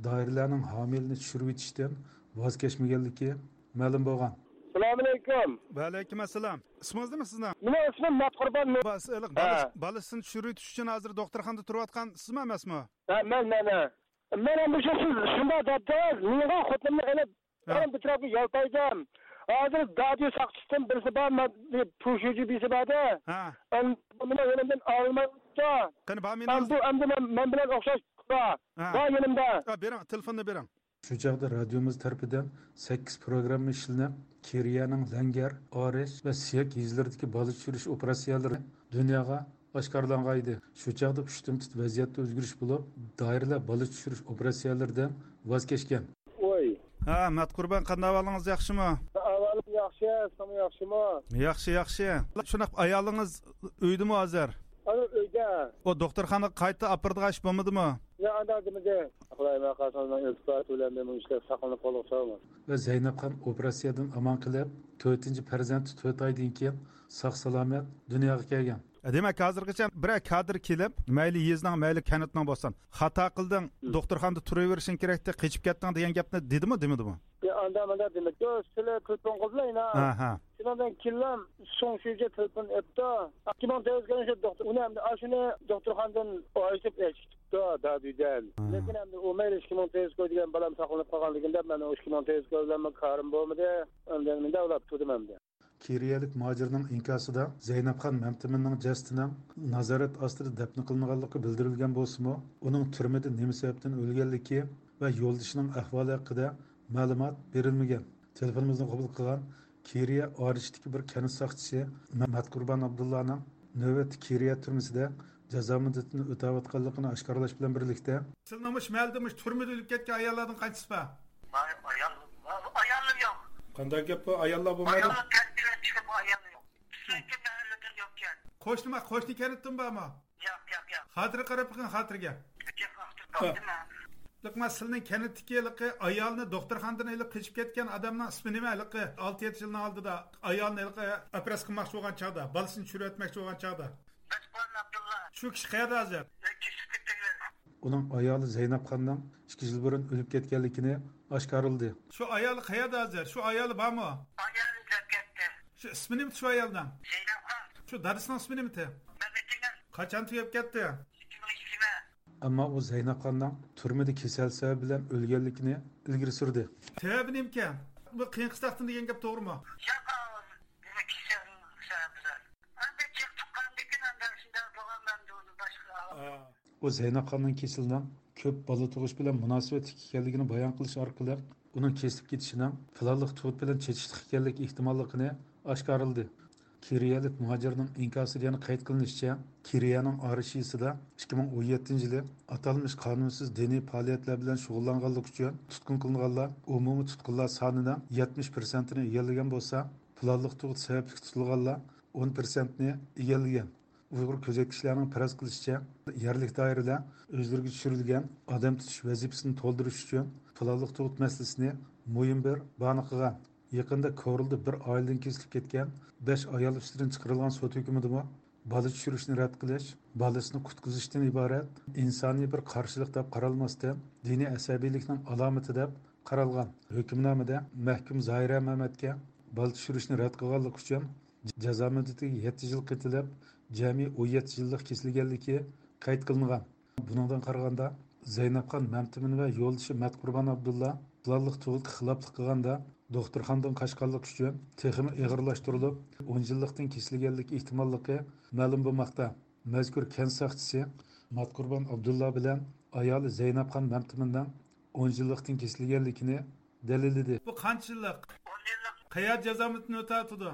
دائىرىلەرنىڭ ھامىلىنى چۈشۈرۈۋېتىشتىن ۋاز كەچمىگەنلىكى مەلۇم بولغان. سالامۇئەلەيكۇم. ۋەئەلەيكۇم ئەسسالام. ئىسمىڭىز نېمە سىزنىڭ؟ مېنىڭ ئىسمىم مەتقۇربان. بۇ سىلىق ھە. بالىسىنى چۈشۈرۈۋېتىش ئۈچۈن ھازىر دوختۇرخانىدا تۇرۇۋاتقان سىزمۇ ئەمەسمۇ؟ ھە، مەن، مەن، ھە. مەن ئەمدى شۇ سىز شۇنداق دەپتىڭىز، مېنىڭغا خوتۇنۇمنى ئېلىپ، ھە. مەن بىر تەرەپكە يالتايدىم. ھازىر دادۈي ساقچىسىدىن بىرسى بار، مەن پۇشۇجى بىرسى بار ئىدى. ھە. ئەمدى بۇنى يېنىمدىن ئالمايۋاتىدۇ. قېنى، بار مېنىڭ. ئەمدى بۇ، ئەمدى مەن، مەن بىلەن ئوخشاش بار. ھە. بار يېنىمدا. ھە، بېرىڭ، تېلېفوننى بېرىڭ. شۇ چاغدا رادىيومىز تەرىپىدىن سەككىز پروگرامما ئىشلىنىپ، كېرىيەنىڭ لەڭگەر، ئارىش ۋە سىيەك يېزىلىرىدىكى بالا چۈشۈرۈش ئوپېراتسىيەلىرى دۇنياغا ئاشكارىلانغانىدى. شۇ چاغدا پۇشتۇمتۇت ۋەزىيەتتە ئۆزگىرىش بولۇپ، دائىرىلەر بالا چۈشۈرۈش ئوپېراتسىيەلىرىدىن ۋاز كەچكەن. ۋاي. ھە، مەتقۇربان، قانداق ئەھۋالىڭىز، ياخشىمۇ؟ ئەھۋالىم ياخشى، سىزمۇ ياخشىمۇ؟ ياخشى، ياخشى. شۇنداق، ئايالىڭىز ئۆيدىمۇ ھازىر؟ ئانا ئۆيدە. ئۇ دوختۇرخانىغا قايتا ئاپىرىدىغان ئىش بولمىدىمۇ؟ ياق، ئانداق دېمىدى. خۇدايىم قالسا ئۇنىڭ ئىلتىپاتى بىلەن مېنىڭ ئىشلار ساقلىنىپ قالغۇچى بولماس. ۋە زەينەپخان ئوپېراتسىيەدىن ئامان قېلىپ، تۆتىنچى پەرزەنتى تۆت ئايدىن كېيىن ساق-سالامەت دۇنياغا كەلگەن. دېمەك، ھازىرغىچە بىرەر كادىر كېلىپ، مەيلى يېزىنىڭ، مەيلى كەنتنىڭ بولسۇن، خاتا قىلدىڭ، ھىم. دوختۇرخانىدا تۇرۇۋېرىشىڭ كېرەكتى، قېچىپ كەتتىڭ دېگەن گەپنى دېدىمۇ، دېمىدىمۇ؟ يا، ئاندا ماندا دېمەك. يو، سىلەر تېلېفون قىلدىلا يەنە. ھە، ھە. شۇنىڭدىن كېيىنلا سۇڭ شۈيجى تېلېفون ئېپتۇ. ئىككى مىڭ تۆت يۈز كۆرۈنۈش دوختۇر. ئۇنى ئەمدى ئاشۇنى دوختۇرخانىدىن ئايرىتىپ ئېچىپتۇ دادۈيدىن. ھە. لېكىن ئەمدى ئۇ مەيلى ئىككى مىڭ تۆت يۈز كوي دېگەن بالام ساقلىنىپ قالغاندىكىن دەپ، مەن ئۇ ئىككى مىڭ تۆت يۈز كوي بىلەن كارىم بولمىدى. ئەمدى مۇنداق ئۇلاپ تۇردۇم ئەمدى. كېرىيەلىك مۇھاجىرنىڭ ئىنكاسىدا زەينەپخان مەمتىمىننىڭ جەسىتىنىڭ نازارەت ئاستىدا دەپنە قىلىنغانلىقى بىلدۈرۈلگەن بولسىمۇ، ئۇنىڭ تۈرمىدە نېمە سەۋەبتىن ئۆلگەنلىكى ۋە يولدىشىنىڭ ئەھۋالى ھەققىدە مەلۇمات بېرىلمىگەن. تېلېفونىمىزنى قوبۇل قىلغان كېرىيە ئارىشتىكى بىر كەنت ساقچىسى مە-، مەتقۇربان ئابدۇللانىڭ نۆۋەتتە كېرىيە تۈرمىسىدە جازا مۇددىتىنى ئۆتەۋاتقانلىقىنى ئاشكارىلاش بىلەن بىرلىكتە، سىلىنىڭ مۇشۇ مەھەللىدە مۇشۇ تۈرمىدە ئۆلۈپ كەتكەن ئاياللاردىن قانچىسى بار؟ ئايال، ئاياللار يوق. قانداق گەپ بۇ؟ ئاياللار بولمايدۇ؟ ئاياللار كەنتتىن چىقىپ، ئاياللار يوق. بىزنىڭكى مەھەللىدە يوقكەن. قوشنىما، قوشنا كەنتتىن بارمۇ؟ ياق، ياق، ياق. خاتىرە قاراپ بېقىڭ، خاتىرىگە. ياق، خاتىرە تاپتىم مەن. لېكىن سىلىنىڭ كەنتتىكى ھېلىقى ئايالنى دوختۇرخانىدىن ئېلىپ قېچىپ كەتكەن ئادەمنىڭ ئىسمى نېمە؟ ھېلىقى ئالتە يەتتە يىلنىڭ ئالدىدا ئايالنى ھېلىقى ئوپېراتسىيە قىلماقچى بولغان چاغدا، بالىسىنى چۈشۈرۈۋەتمەكچى بولغان چاغدا. مەتقۇربان ئابدۇللا. شۇ كىشى قەيەردە ھازىر؟ كېسىپ كەتتى. ئۇنىڭ ئايالى زەينەپخاننىڭ ئىككى يىل بۇرۇن ئۆلۈپ كەتكەنلىكىنى ئاشكارىلىدى. شۇ ئايالى قەيەردە ھازىر؟ شۇ ئايالى بارمۇ؟ ئايالى ئۆلۈپ كەتتى. شۇ ئىسمى نېمىتى شۇ ئايالنىڭ؟ زەينەپخان. شۇ دادىسىنىڭ ئىسمى نېمىتى؟ مەمەتجېنىل. قاچان تۈگەپ كەتتى؟ ئىككى مىڭ يىگىرمە. ئەمما ئۇ زەينەپخاننىڭ تۈرمىدە كېسەل سەۋەبى بىلەن ئۆلگەنلىكىنى ئىلگىرى سۈردى. سەۋەبى نېمىكەن؟ بۇ قېيىن قىستاقتىن دېگەن گەپ توغرىمۇ؟ ياق، بۇ كېسەل سەۋەبى بىلەن. ئەمدى جىق تۇغقاندىكىن ئەمدى شۇنداق بولغان، ئەمدى ئۇنى باشقا. ئا. ئۇ زەينەپخاننىڭ كېسىلىنىڭ كۆپ بالا تۇغۇش بىلەن مۇناسىۋەتلىك ئىكەنلىكىنى بايان قىلىش ئارقىلىق، ئۇنىڭ كېسىلىپ كېتىشىنىڭ پىلانلىق تۇغۇت بىلەن چېتىشلىق ئىكەنلىكى ئېھتىماللىقىنى ئاشكارىلىدى. كېرىيەلىك مۇھاجىرنىڭ ئىنكاسىدا يەنە قەيت قىلىنىشىچە، كېرىيەنىڭ ئارىشىسىدا ئىككى مىڭ ئون يەتتىنچى يىلى ئاتالمىش قانۇنسىز دىنىي پائالىيەتلەر بىلەن شۇغۇللانغانلىقى ئۈچۈن تۇتقۇن قىلىنغانلار ئومۇمىي تۇتقۇنلار سانىنىڭ يەتمىش پىرسەنتىنى ئىگىلىگەن بولسا، پىلانلىق تۇغۇت سەۋەبلىك تۇتۇلغانلار ئون پىرسەنتنى ئىگىلىگەن. ئۇيغۇر كۆزەتكۈچىلەرنىڭ پەرەز قىلىشىچە، يەرلىك دائىرىلەر ئۆزلىرىگە چۈشۈرۈلگەن ئادەم تۇتۇش ۋەزىپىسىنى تولدۇرۇش ئۈچۈن پىلانلىق تۇغۇت مەسىلىسىنى مۇھىم بىر باھانە قىلغان. يېقىندا كورلىدا بىر ئائىلىدىن كېسىلىپ كەتكەن بەش ئايال ئۈستىدىن چىقىرىلغان سوت ھۆكمىدىمۇ بالا چۈشۈرۈشنى رەت قىلىش، بالىسىنى قۇتقۇزۇشتىن ئىبارەت ئىنسانىي بىر قارشىلىق دەپ قارالماستىن، دىنىي ئەسەبىيلىكنىڭ ئالامىتى دەپ قارالغان. ھۆكۈمنامىدە مەھكۇم زاھىرە مەمەتكە بالا چۈشۈرۈشنى رەت قىلغانلىقى ئۈچۈن جازا مۇددىتىگە يەتتە يىل قېتىلىپ، جەمئىي ئون يەتتە يىللىق كېسىلگەنلىكى قەيت قىلىنغان. بۇنىڭدىن قارىغاندا، زەينەپخان مەمتىمىن ۋە يولدىشى مەتقۇربان ئابدۇللا پىلانلىق تۇغۇتقا خىلاپلىق قىلغاندا، دوختۇرخانىدىن قاچقانلىقى ئۈچۈن تېخىمۇ ئېغىرلاشتۇرۇلۇپ، ئون يىللىقتىن كېسىلگەنلىك ئېھتىماللىقى مەلۇم بولماقتا. مەزكۇر كەنت ساقچىسى ماتقۇربان ئابدۇللا بىلەن ئايالى زەينەپخان مەمتىمىننىڭ ئون يىللىقتىن كېسىلگەنلىكىنى دەلىللىدى. بۇ قانچە يىللىق؟ قەيەردە جازا مۇددىتىنى ئۆتەۋاتىدۇ؟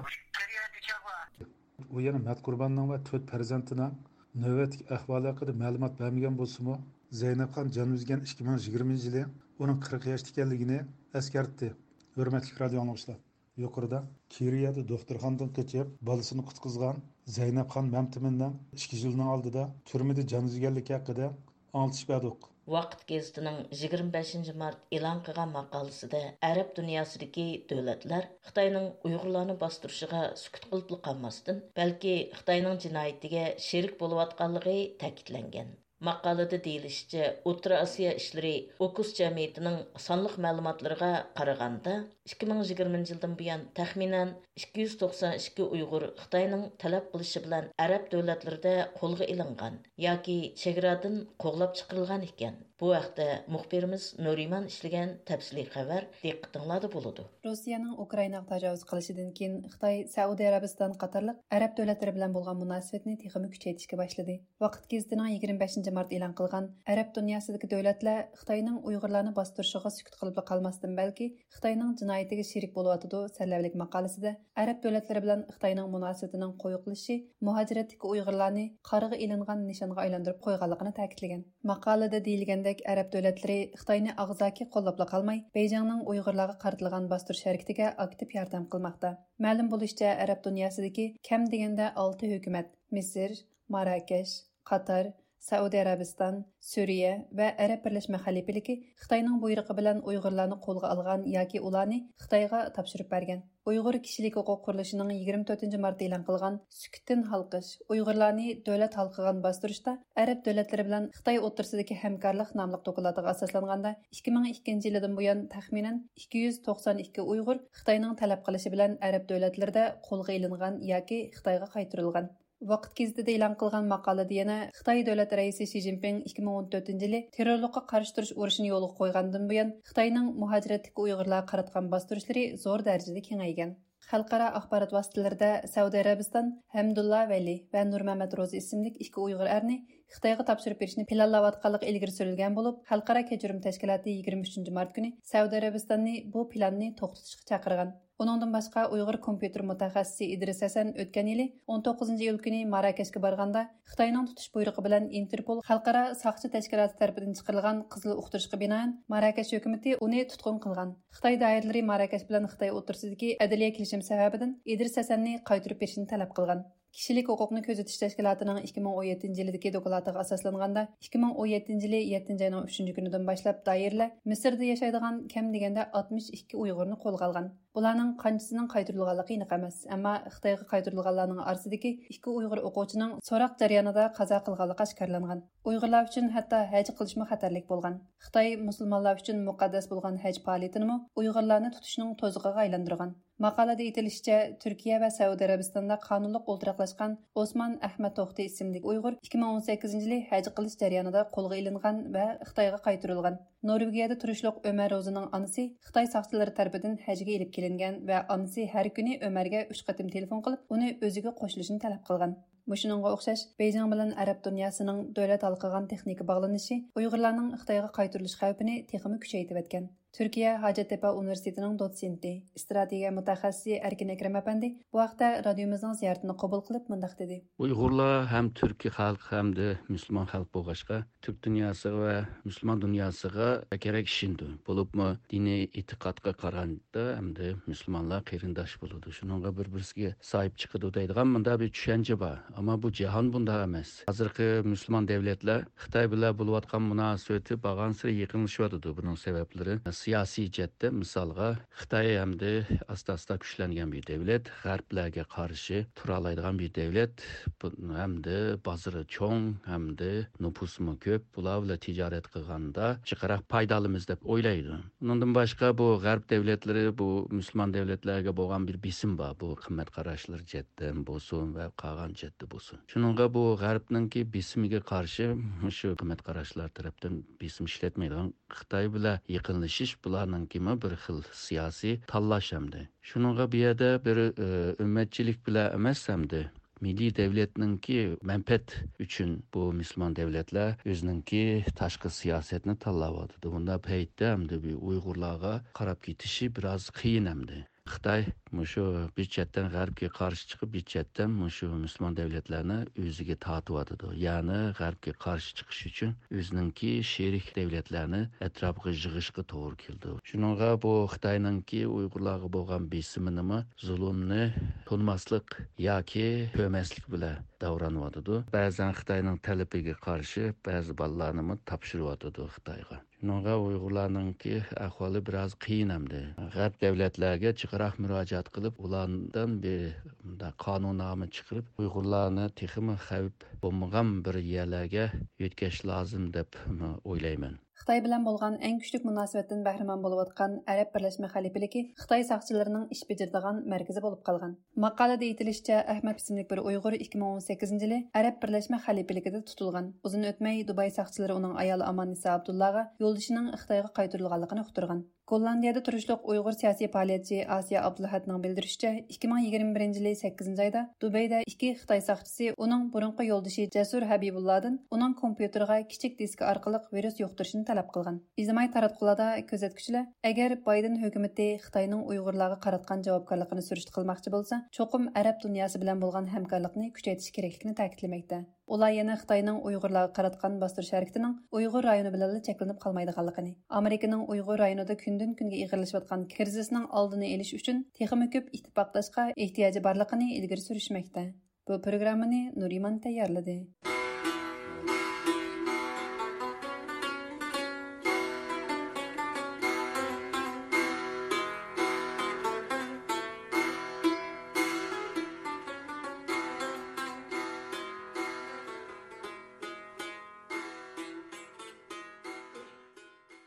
ئۇ يەنە مەتقۇرباننىڭ ۋە تۆت پەرزەنتىنىڭ نۆۋەتتىكى ئەھۋالى ھەققىدە مەلۇمات بەرمىگەن بولسىمۇ، زەينەپخان جان ئۈزگەن ئىككى مىڭ يىگىرمىنچى يىلى ئۇنىڭ قىرىق ياشتا ئىكەنلىكىنى ئەسكەرتتى. ھۆرمەتلىك رادىئو ئاڭلىغۇچىلار! يۇقىرىدا كىرىيەدە دوختۇرخانىدىن قېچىپ، بالىسىنى قۇتقۇزغان زەينەپخان مەمتىمىننىڭ ئىككى يىلنىڭ ئالدىدا تۈرمىدە جان ئۈزگەنلىكى ھەققىدە ئاڭلىتىش بەردۇق. ۋاقىت گېزىتىنىڭ يىگىرمە بەشىنچى مارت ئېلان قىلغان ماقالىسىدە ئەرەب دۇنياسىدىكى دۆلەتلەر خىتاينىڭ ئۇيغۇرلارنى باستۇرۇشىغا سۈكۈت قىلىپلا قالماستىن، بەلكى خىتاينىڭ جىنايىتىگە شېرىك بولۇۋاتقانلىقى تەكىتلەنگەن. ماقالىدە دېيىلىشىچە، ئوتتۇرا ئاسىيا ئىشلىرى ئوكۇس جەمئىيىتىنىڭ سانلىق مەلۇماتلىرىغا قارىغاندا، ئىككى مىڭ يىگىرمىنچى يىلدىن بۇيان تەخمىنەن ئىككى يۈز توقسان ئىككى ئۇيغۇر خىتاينىڭ تەلەپ قىلىشى بىلەن ئەرەب دۆلەتلىرىدە قولغا ئېلىنغان ياكى چېگرادىن قوغلاپ چىقىرىلغان ئىكەن. بۇ ھەقتە مۇخبىرىمىز نۇرىمان ئىشلىگەن تەپسىلىي خەۋەر دىققىتىڭلاردا بولىدۇ. روسىيەنىڭ ئۇكرائىناغا تاجاۋۇز قىلىشىدىن كېيىن، خىتاي سەئۇدى ئەرەبىستان قاتارلىق ئەرەب دۆلەتلىرى بىلەن بولغان مۇناسىۋەتنى تېخىمۇ كۈچەيتىشكە باشلىدى. ۋاقىت گېزىتىنىڭ يىگىرمە بەشىنچى مارت ئېلان قىلغان ئەرەب دۇنياسىدىكى دۆلەتلەر خىتاينىڭ ئۇيغۇرلارنى باستۇرۇشىغا سۈكۈت قىلىپلا قالماستىن، بەلكى خىتاينىڭ جىنايىتىگە شېرىك بولۇۋاتىدۇ سەرلەۋھىلىك ماقالىسىدە ئەرەب دۆلەتلىرى بىلەن خىتاينىڭ مۇناسىۋىتىنىڭ قويۇقلىشىشى مۇھاجىرەتتىكى ئۇيغۇرلارنى قارىغا ئېلىنغان نىشانغا ئايلاندۇرۇپ قويغانلىقىنى تەكىتلىگەن. ماقالىدە دېيىلگەندەك، ئەرەب دۆلەتلىرى خىتاينى ئاغزاكى قوللاپلا قالماي، بېيجىڭنىڭ ئۇيغۇرلارغا قارىتىلغان باستۇرۇش ھەرىكىتىگە ئاكتىپ ياردەم قىلماقتا. مەلۇم بولۇشىچە، ئەرەب دۇنياسىدىكى كەم دېگەندە ئالتە ھۆكۈمەت، مىسىر، ماراكەش، قاتار، سەئۇدى ئەرەبىستان، سۈرىيە ۋە ئەرەب بىرلەشمە خەلىپىلىكى خىتاينىڭ بۇيرۇقى بىلەن ئۇيغۇرلارنى قولغا ئالغان ياكى ئۇلارنى خىتايغا تاپشۇرۇپ بەرگەن. ئۇيغۇر كىشىلىك ھوقۇق قۇرۇلۇشىنىڭ يىگىرمە تۆتىنچى مارتتا ئېلان قىلغان سۈكۈتتىن ھالقىش، ئۇيغۇرلارنى دۆلەت ھالقىغان باستۇرۇشتا ئەرەب دۆلەتلىرى بىلەن خىتاي ئوتتۇرىسىدىكى ھەمكارلىق ناملىق دوكلاتىغا ئاساسلانغاندا، ئىككى مىڭ ئىككىنچى يىلىدىن بۇيان تەخمىنەن ئىككى يۈز توقسان ئىككى ئۇيغۇر خىتاينىڭ تەلەپ قىلىشى بىلەن ئەرەب دۆلەتلىرىدە قولغا ئېلىنغان ياكى خىتايغا قايتۇرۇلغان. ۋاقىت گېزىتىدە ئېلان قىلغان ماقالىدە يەنە خىتاي دۆلەت رەئىسى شى جىنپىڭ ئىككى مىڭ ئون تۆتىنچى يىلى تېررورلۇققا قارشى تۇرۇش ئۇرۇشىنى يولغا قويغاندىن بۇيان، خىتاينىڭ مۇھاجىرەتتىكى ئۇيغۇرلارغا قاراتقان باستۇرۇشلىرى زور دەرىجىدە كېڭەيگەن. خەلقئارا ئاخبارات ۋاسىتىلىرىدە سەئۇدى ئەرەبىستان ھەمدۇللا ۋەلى ۋە نۇرمەمەت روزى ئىسىملىك ئىككى ئۇيغۇر ئەرنى خىتايغا تاپشۇرۇپ بېرىشنى پىلانلاۋاتقانلىقى ئىلگىرى سۈرۈلگەن بولۇپ، خەلقئارا كەچۈرۈم تەشكىلاتى يىگىرمە ئۈچىنچى مارت كۈنى سەئۇدى ئەرەبىستاننى بۇ پىلاننى توختىتىشقا چاقىرغان. ئۇنىڭدىن باشقا، ئۇيغۇر كومپيۇتېر مۇتەخەسسىسى ئىدرىس ھەسەن ئۆتكەن يىلى ئون توققۇزىنچى ئىيۇل كۈنى ماراكەشكە بارغاندا، خىتاينىڭ تۇتۇش بۇيرۇقى بىلەن ئىنتېرپول خەلقئارا ساقچى تەشكىلاتى تەرىپىدىن چىقىرىلغان قىزىل ئۇقتۇرۇشقا بىنائەن، ماراكەش ھۆكۈمىتى ئۇنى تۇتقۇن قىلغان. خىتاي دائىرىلىرى ماراكەش بىلەن خىتاي ئوتتۇرىسىدىكى ئەدلىيە كېلىشىم سەۋەبىدىن ئىدرىس ھەسەننى قايتۇرۇپ بېرىشنى تەلەپ قىلغان. كىشىلىك ھوقۇقنى كۆزىتىش تەشكىلاتىنىڭ ئىككى مىڭ ئون يەتتىنچى يىلىدىكى دوكلاتىغا ئاساسلانغاندا، ئىككى مىڭ ئون يەتتىنچى يىلى يەتتىنچى ئاينىڭ ئۈچىنچى كۈنىدىن باشلاپ دائىرىلەر مىسىردا ياشايدىغان كەم دېگەندە ئاتمىش ئىككى ئۇيغۇرنى قولغا ئالغان. بۇلارنىڭ قانچىسىنىڭ قايتۇرۇلغانلىقى ئېنىق ئەمەس، ئەمما خىتايغا قايتۇرۇلغانلارنىڭ ئارىسىدىكى ئىككى ئۇيغۇر ئوقۇغۇچىنىڭ سوراق جەريانىدا قازا قىلغانلىقى ئاشكارىلانغان. ئۇيغۇرلار ئۈچۈن ھەتتا ھەج قىلىشمۇ خەتەرلىك بولغان. خىتاي مۇسۇلمانلار ئۈچۈن مۇقەددەس بولغان ھەج پائالىيىتىنىمۇ ئۇيغۇرلارنى تۇتۇشنىڭ توزۇقىغا ئايلاندۇرغان. ماقالىدە ئېيتىلىشىچە، تۈركىيە ۋە سەئۇدى ئەرەبىستاندا قانۇنلۇق ئولتۇراقلاشقان ئوسمان ئەھمەت توختى ئىسىملىك ئۇيغۇر ئىككى مىڭ ئون سەككىزىنچى يىلى ھەج قىلىش جەريانىدا قولغا ئېلىنغان ۋە خىتايغا قايتۇرۇلغان. نورۋېگىيەدە تۇرۇشلۇق ئۆمەر روزىنىڭ ئانىسى خىتاي ساقچىلىرى تەرىپىدىن ھەجگە ئېلىپ كېلىنگەن ۋە ئانىسى ھەر كۈنى ئۆمەرگە ئۈچ قېتىم تېلېفون قىلىپ، ئۇنى ئۆزىگە قوشۇلۇشىنى تەلەپ قىلغان. مۇشۇنىڭغا ئوخشاش، بېيجىڭ بىلەن ئەرەب دۇنياسىنىڭ دۆلەت ھالقىغان تېخنىكا باغلىنىشى ئۇيغۇرلارنىڭ خىتايغا قايتۇرۇلۇش خەۋپىنى تېخىمۇ كۈچەيتىۋەتكەن. تۈركىيە ھاجەتتېپە ئۇنىۋېرسىتېتىنىڭ دوتسېنتى، ئىستراتېگىيە مۇتەخەسسىسى ئەركىن ئەكرەم ئەپەندى بۇ ھەقتە رادىيومىزنىڭ زىيارىتىنى قوبۇل قىلىپ مۇنداق دېدى. ئۇيغۇرلار ھەم تۈركىي خەلق، ھەمدە مۇسۇلمان خەلق بولغاچقا، تۈرك دۇنياسىغا ۋە مۇسۇلمان دۇنياسىغا بەكرەك ئىشىنىدۇ. بولۇپمۇ دىنىي ئېتىقادقا قارىغاندا، ھەمدە مۇسۇلمانلار قېرىنداش بولىدۇ، شۇنىڭغا بىر-بىرسىگە ساھىب چىقىدۇ دەيدىغان مۇنداق بىر چۈشەنچە بار. ئەمما بۇ جاھان بۇنداق ئەمەس. ھازىرقى مۇسۇلمان دۆلەتلەر خىتاي بىلەن بولۇۋاتقان مۇناسىۋىتى بارغانسېرى يېقىنلىشىۋاتىدۇ. بۇنىڭ سەۋەبلىرى سىياسىي جەھەتتە، مىسالغا، خىتاي ھەمدە ئاستا-ئاستا كۈچلەنگەن بىر دۆلەت، غەربلەرگە قارشى تۇرالايدىغان بىر دۆلەت، بۇ، ھەمدە بازىرى چوڭ، ھەمدە نوپۇسىمۇ كۆپ، بۇلار بىلەن تىجارەت قىلغاندا جىقراق پايدا ئالىمىز دەپ ئويلايدۇ. ئۇنىڭدىن باشقا، بۇ غەرب دۆلەتلىرى بۇ مۇسۇلمان دۆلەتلەرگە بولغان بىر بېسىم بار، بۇ قىممەت قاراشلىرى جەھەتتىن بولسۇن ۋە قالغان جەھەتتە بولسۇن. شۇنىڭغا بۇ غەربنىڭكى بېسىمىگە قارشى مۇشۇ قىممەت قاراشلار تەرەپتىن بېسىم ئىشلەتمەيدىغان خىتاي بىلەن يېقىنلىشىش بۇلارنىڭكىمۇ بىر خىل سىياسىي تاللاش ئەمدى. شۇنىڭغا بۇ يەردە بىر، ئى، ئۈممەتچىلىك بىلەن ئەمەس ئەمدى، مىللىي دەۋلەتنىڭكى مەنپەئەت ئۈچۈن بۇ مۇسۇلمان دەۋلەتلەر ئۆزىنىڭكى تاشقى سىياسەتنى تاللاۋاتىدۇ. بۇنداق پەيتتە ئەمدى بۇ ئۇيغۇرلارغا قاراپ كېتىشى بىراز قىيىن ئەمدى. خىتاي مۇشۇ بىر چەتتىن غەربكە قارشى چىقىپ، بىر چەتتىن مۇشۇ مۇسۇلمان دەۋلەتلەرنى ئۆزىگە تارتىۋاتىدۇ. يەنى غەربكە قارشى چىقىش ئۈچۈن ئۆزىنىڭكى شېرىك دەۋلەتلەرنى ئەتراپىغا يىغىشقا توغرا كېلىدۇ. شۇنىڭغا بۇ خىتاينىڭكى ئۇيغۇرلارغا بولغان بېسىمىنىمۇ زۇلۇمنى تونۇماسلىق ياكى كۆرمەسلىك بىلەن داۋرانىۋاتىدۇ. بەزەن خىتاينىڭ تەلىپىگە قارشى بەزى بالىلارنىمۇ تاپشۇرۇۋاتىدۇ خىتايغا. شۇنىڭغا ئۇيغۇرلارنىڭكى ئەھۋالى بىراز قىيىن ئەمدى. غەرب دەۋلەتلەرگە جىقراق مۇراجىئەت قىلىپ، ئۇلاردىن بىر مۇنداق قانۇننامە چىقىرىپ، ئۇيغۇرلارنى تېخىمۇ خەۋپ بولمىغان بىر يەرلەرگە يۆتكەش لازىم دەپ ئويلايمەن. خىتاي بىلەن بولغان ئەڭ كۈچلۈك مۇناسىۋەتتىن بەھرىمەن بولۇۋاتقان ئەرەب بىرلەشمە خەلىپىلىكى خىتاي ساقچىلىرىنىڭ ئىش بېجىرىدىغان مەركىزى بولۇپ قالغان. ماقالىدە ئېيتىلىشىچە، ئەھمەد ئىسىملىك بىر ئۇيغۇر ئىككى مىڭ ئون سەككىزىنچى يىلى ئەرەب بىرلەشمە خەلىپىلىكىدە تۇتۇلغان. ئۇزۇن ئۆتمەي دۇباي ساقچىلىرى ئۇنىڭ ئايالى ئاماننىسا ئابدۇللاغا يولدىشىنىڭ خىتايغا قايتۇرۇلغانلىقىنى ئۇقتۇرغان. گوللاندىيەدە تۇرۇشلۇق ئۇيغۇر سىياسىي پائالىيەتچى ئاسىيە ئابدۇلئەھەدنىڭ بىلدۈرۈشىچە، ئىككى مىڭ يىگىرمە بىرىنچى يىلى سەككىزىنچى ئايدا دۇبەيدە ئىككى خىتاي ساقچىسى ئۇنىڭ بۇرۇنقى يولدىشى جەسۇر ھەبىبۇللادىن ئۇنىڭ كومپيۇتېرىغا كىچىك دىسكا ئارقىلىق ۋىرۇس يۇقتۇرۇشنى تەلەپ قىلغان. ئىجتىمائىي تاراتقۇلاردا كۆزەتكۈچىلەر، ئەگەر بايدېن ھۆكۈمىتى خىتاينىڭ ئۇيغۇرلارغا قاراتقان جاۋابكارلىقىنى سۈرۈشتە قىلماقچى بولسا، چوقۇم ئەرەب دۇنياسى بىلەن بولغان ھەمكارلىقنى كۈچەيتىش كېرەكلىكىنى تەكىتلىمەكتە. ئۇلار يەنە خىتاينىڭ ئۇيغۇرلارغا قاراتقان باستۇرۇش ھەرىكىتىنىڭ ئۇيغۇر رايونى بىلەنلا چەكلىنىپ قالمايدىغانلىقىنى، ئامېرىكىنىڭ ئۇيغۇر رايونىدا كۈندىن-كۈنگە ئېغىرلىشىۋاتقان كىرىزىسنىڭ ئالدىنى ئېلىش ئۈچۈن تېخىمۇ كۆپ ئىتتىپاقداشقا ئېھتىياجى بارلىقىنى ئىلگىرى سۈرۈشمەكتە. بۇ پروگراممىنى نۇرىمان تەييارلىدى.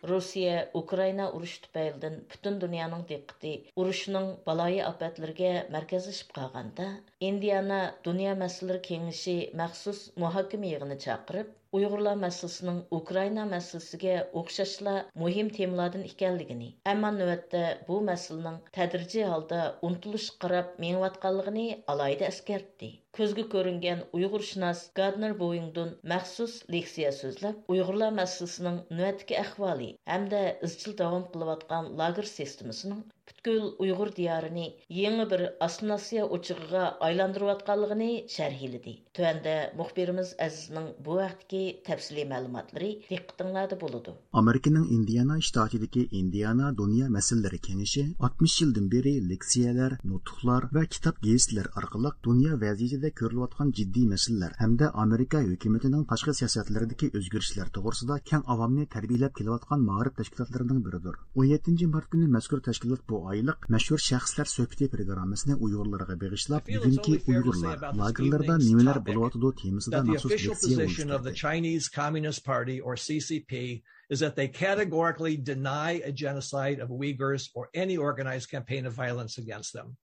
روسىيە ئۇكرائىنا ئۇرۇشى تۈپەيلىدىن پۈتۈن دۇنيانىڭ دىققىتى ئۇرۇشنىڭ بالايىئاپەتلىرىگە مەركەزلىشىپ قالغاندا، ئىندىئانا دۇنيا مەسىلىلىرى كېڭىشى مەخسۇس مۇھاكىمە يىغىنى چاقىرىپ، ئۇيغۇرلار مەسىلىسىنىڭ ئۇكرائىنا مەسىلىسىگە ئوخشاشلا مۇھىم تېمىلاردىن ئىكەنلىكىنى، ئەمما نۆۋەتتە بۇ مەسىلىنىڭ تەدرىجىي ھالدا ئۇنتۇلۇشقا قاراپ مېڭىۋاتقانلىقىنى ئالاھىدە ئەسكەرتتى. كۆزگە كۆرۈنگەن ئۇيغۇرشۇناس گاردنېر بوۋىڭدون مەخسۇس لېكسىيە سۆزلەپ، ئۇيغۇرلار مەسىلىسىنىڭ نۆۋەتتىكى ئەھۋالى ھەمدە ئىزچىل داۋام قىلىۋاتقان لاگېر سىستېمىسىنىڭ پۈتكۈل ئۇيغۇر دىيارىنى يېڭى بىر ئاسسىمىلياتسىيە ئوچىقىغا ئايلاندۇرۇۋاتقانلىقىنى شەرھلىدى. تۆۋەندە مۇخبىرىمىز ئەزىزنىڭ بۇ ھەقتىكى تەپسىلىي مەلۇماتلىرى دىققىتىڭلاردا بولىدۇ. ئامېرىكىنىڭ ئىندىئانا شتاتىدىكى ئىندىئانا دۇنيا مەسىلىلىرى كېڭىشى ئاتمىش يىلدىن بېرى لېكسىيەلەر، نۇتۇقلار ۋە كىتاب گېزىتلەر ئارقىلىق دۇنيا ۋەزىيىتىدە كۆرۈلۈۋاتقان جىددىي مەسىلىلەر ھەمدە ئامېرىكا ھۆكۈمىتىنىڭ تاشقى سىياسەتلىرىدىكى ئۆزگىرىشلەر توغرىسىدا كەڭ ئاۋامنى تەربىيەلەپ كېلىۋاتقان مائارىپ تەشكىلاتلىرىنىڭ بىرىدۇر. ئون يەتتىنچى مارت كۈنى مەزكۇر تەشكىلات بۇ ئايلىق مەشھۇر شەخسلەر سۆھبىتى پروگراممىسىنى ئۇيغۇرلارغا بېغىشلاپ، بۈگۈنكى ئۇيغۇرلار لاگېرلاردا نېمىلەر بولۇۋاتىدۇ تېمىسىدا مەخسۇس لېكسىيە ئۇيۇشتۇردى. Chinese Communist Party or C C P is that they categorically deny a genocide of Uyghurs or any organized campaign of violence against them.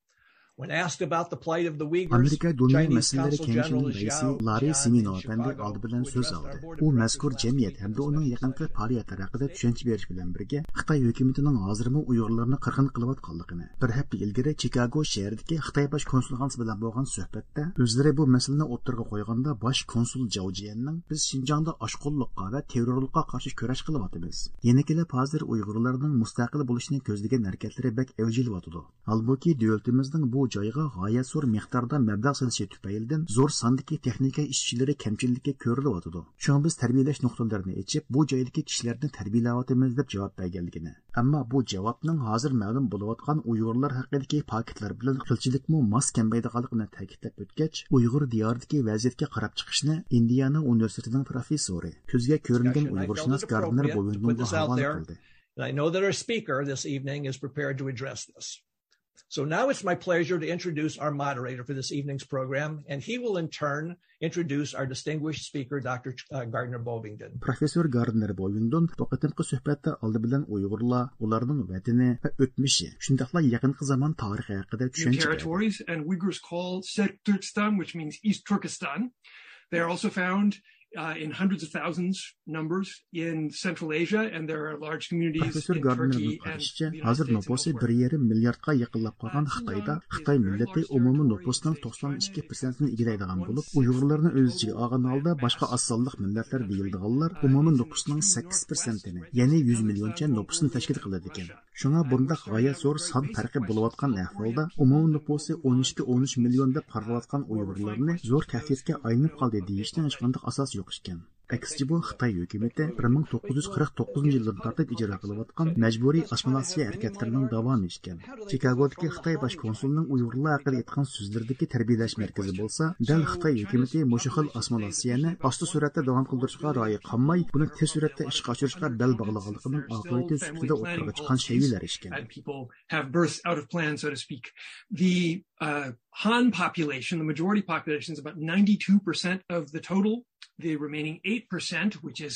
When asked about the plight of the Uyghurs, ئامېرىكا دۇنيا مەسىلىلىرى كېڭىشىنىڭ رەئىسى لاررى سىمىنو ئەپەندى ئالدى بىلەن سۆز ئالدى. ئۇ مەزكۇر جەمئىيەت ھەمدە ئۇنىڭ يېقىنقى پائالىيەتلىرى ھەققىدە چۈشەنچە بېرىش بىلەن بىرگە، خىتاي ھۆكۈمىتىنىڭ ھازىرمۇ ئۇيغۇرلارنى قىرغىن قىلىۋاتقانلىقىنى، بىر ھەپتە ئىلگىرى چىكاگو شەھىرىدىكى خىتاي باش كونسۇلخانىسى بىلەن بولغان سۆھبەتتە ئۆزلىرى بۇ مەسىلىنى ئوتتۇرىغا قويغاندا، باش كونسۇل جاۋ جيەننىڭ، بىز شىنجاڭدا ئاشقۇنلۇققا ۋە تېررورلۇققا قارشى كۈرەش قىلىۋاتىمىز. يەنە كېلىپ ھازىر ئۇيغۇرلارنىڭ مۇستەقىل بولۇشنى كۆزلىگەن ھەرىكەتلىرى بەك ئەۋج ئېلىۋاتىدۇ. ھالبۇكى، دۆلىتىمىزنىڭ بۇ جايغا غايەت زور مىقداردا مەبلەغ سېلىشى تۈپەيلىدىن زور ساندىكى تېخنىكا ئىشچىلىرى كەمچىللىككە كۆرۈلۈۋاتىدۇ. شۇڭا بىز تەربىيەلەش نۇقتىلىرىنى ئېچىپ، بۇ جايدىكى كىشىلەرنى تەربىيەلەۋاتىمىز، دەپ جاۋاب بەرگەنلىكىنى، ئەمما بۇ جاۋابنىڭ ھازىر مەلۇم بولۇۋاتقان ئۇيغۇرلار ھەققىدىكى پاكىتلار بىلەن قىلچىلىكمۇ ماس كەلمەيدىغانلىقىنى تەكىتلەپ ئۆتكەچ، ئۇيغۇر دىيارىدىكى ۋەزىيەتكە قاراپ چىقىشنى ئىندىئانا ئۇنىۋېرسىتېتىنىڭ پروفېسسورى، كۆزگە كۆرۈنگەن ئۇيغۇرشۇناس گاردنېر بوۋىڭدونغا ھاۋالە قىلدى. And I know that our speaker this evening is prepared to address this. So now it's my pleasure to introduce our moderator for this evening's program, and he will in turn introduce our distinguished speaker, Doctor Ch-, uh, Gardner Bovingdon. پروفېسسور گاردنېر بوۋىڭدون بۇ قېتىمقى سۆھبەتتە ئالدى بىلەن ئۇيغۇرلار، ئۇلارنىڭ ۋەتىنى ۋە ئۆتمۈشى، شۇنداقلا يېقىنقى زامان تارىخى ھەققىدە چۈشەنچە بەردى. Territories, and Uyghurs call Sirkturkistan, which means East Turkestan. They are also found uh, in hundreds of thousands numbers in Central Asia, and there are large communities پروفېسسور in گاردنېرنىڭ Turkey and قارىشىچە، the United ھازىر States and نوپۇسى elsewhere. بىر يېرىم مىلياردقا يېقىنلاپ قالغان خىتايدا خىتاي مىللىتى ئومۇمىي نوپۇسنىڭ توقسان ئىككى پىرسەنتىنى ئىگىلەيدىغان بولۇپ، ئۇيغۇرلارنى ئۆز ئىچىگە ئالغان ھالدا باشقا ئاز سانلىق مىللەتلەر دېيىلىدىغانلار ئومۇمىي نوپۇسنىڭ سەككىز پىرسەنتىنى، يەنى يۈز مىليونچە نوپۇسنى تەشكىل قىلىدىكەن. شۇڭا بۇنداق غايەت زور سان پەرقى بولۇۋاتقان ئەھۋالدا، ئومۇمىي نوپۇسى ئون ئىككى، ئون ئۈچ مىليون دەپ قارىلىۋاتقان ئۇيغۇرلارنى زور تەھدىتكە ئايلىنىپ قالدى دېيىشنىڭ ھېچقانداق ئاساسى يوق ئىكەن. ئەكسىچە، بۇ خىتاي ھۆكۈمىتى بىر مىڭ توققۇز يۈز قىرىق توققۇزىنچى يىلدىن تارتىپ ئىجرا قىلىۋاتقان مەجبۇرىي ئاسسىمىلياتسىيە ھەرىكەتلىرىنىڭ داۋامى ئىكەن. چىكاگودىكى خىتاي باش كونسۇلىنىڭ ئۇيغۇرلار ھەققىدە ئېيتقان سۆزلىرىدىكى تەربىيەلەش مەركىزى بولسا، دەل خىتاي ھۆكۈمىتى مۇشۇ خىل ئاسسىمىلياتسىيەنى ئاستا سۈرئەتتە داۋام قىلدۇرۇشقا رايى قانماي، بۇنى تېز سۈرئەتتە ئىشقا ئاشۇرۇشقا بەل باغلىغانلىقىنىڭ ئاقىۋىتى سۈپىتىدە ئوتتۇرىغا چىققان شەيئىلەر ئىكەن. And people have burst out of plan, so to speak. The uh, Han population, the majority population, is about ninety-two percent of the total. The remaining eight percent, which is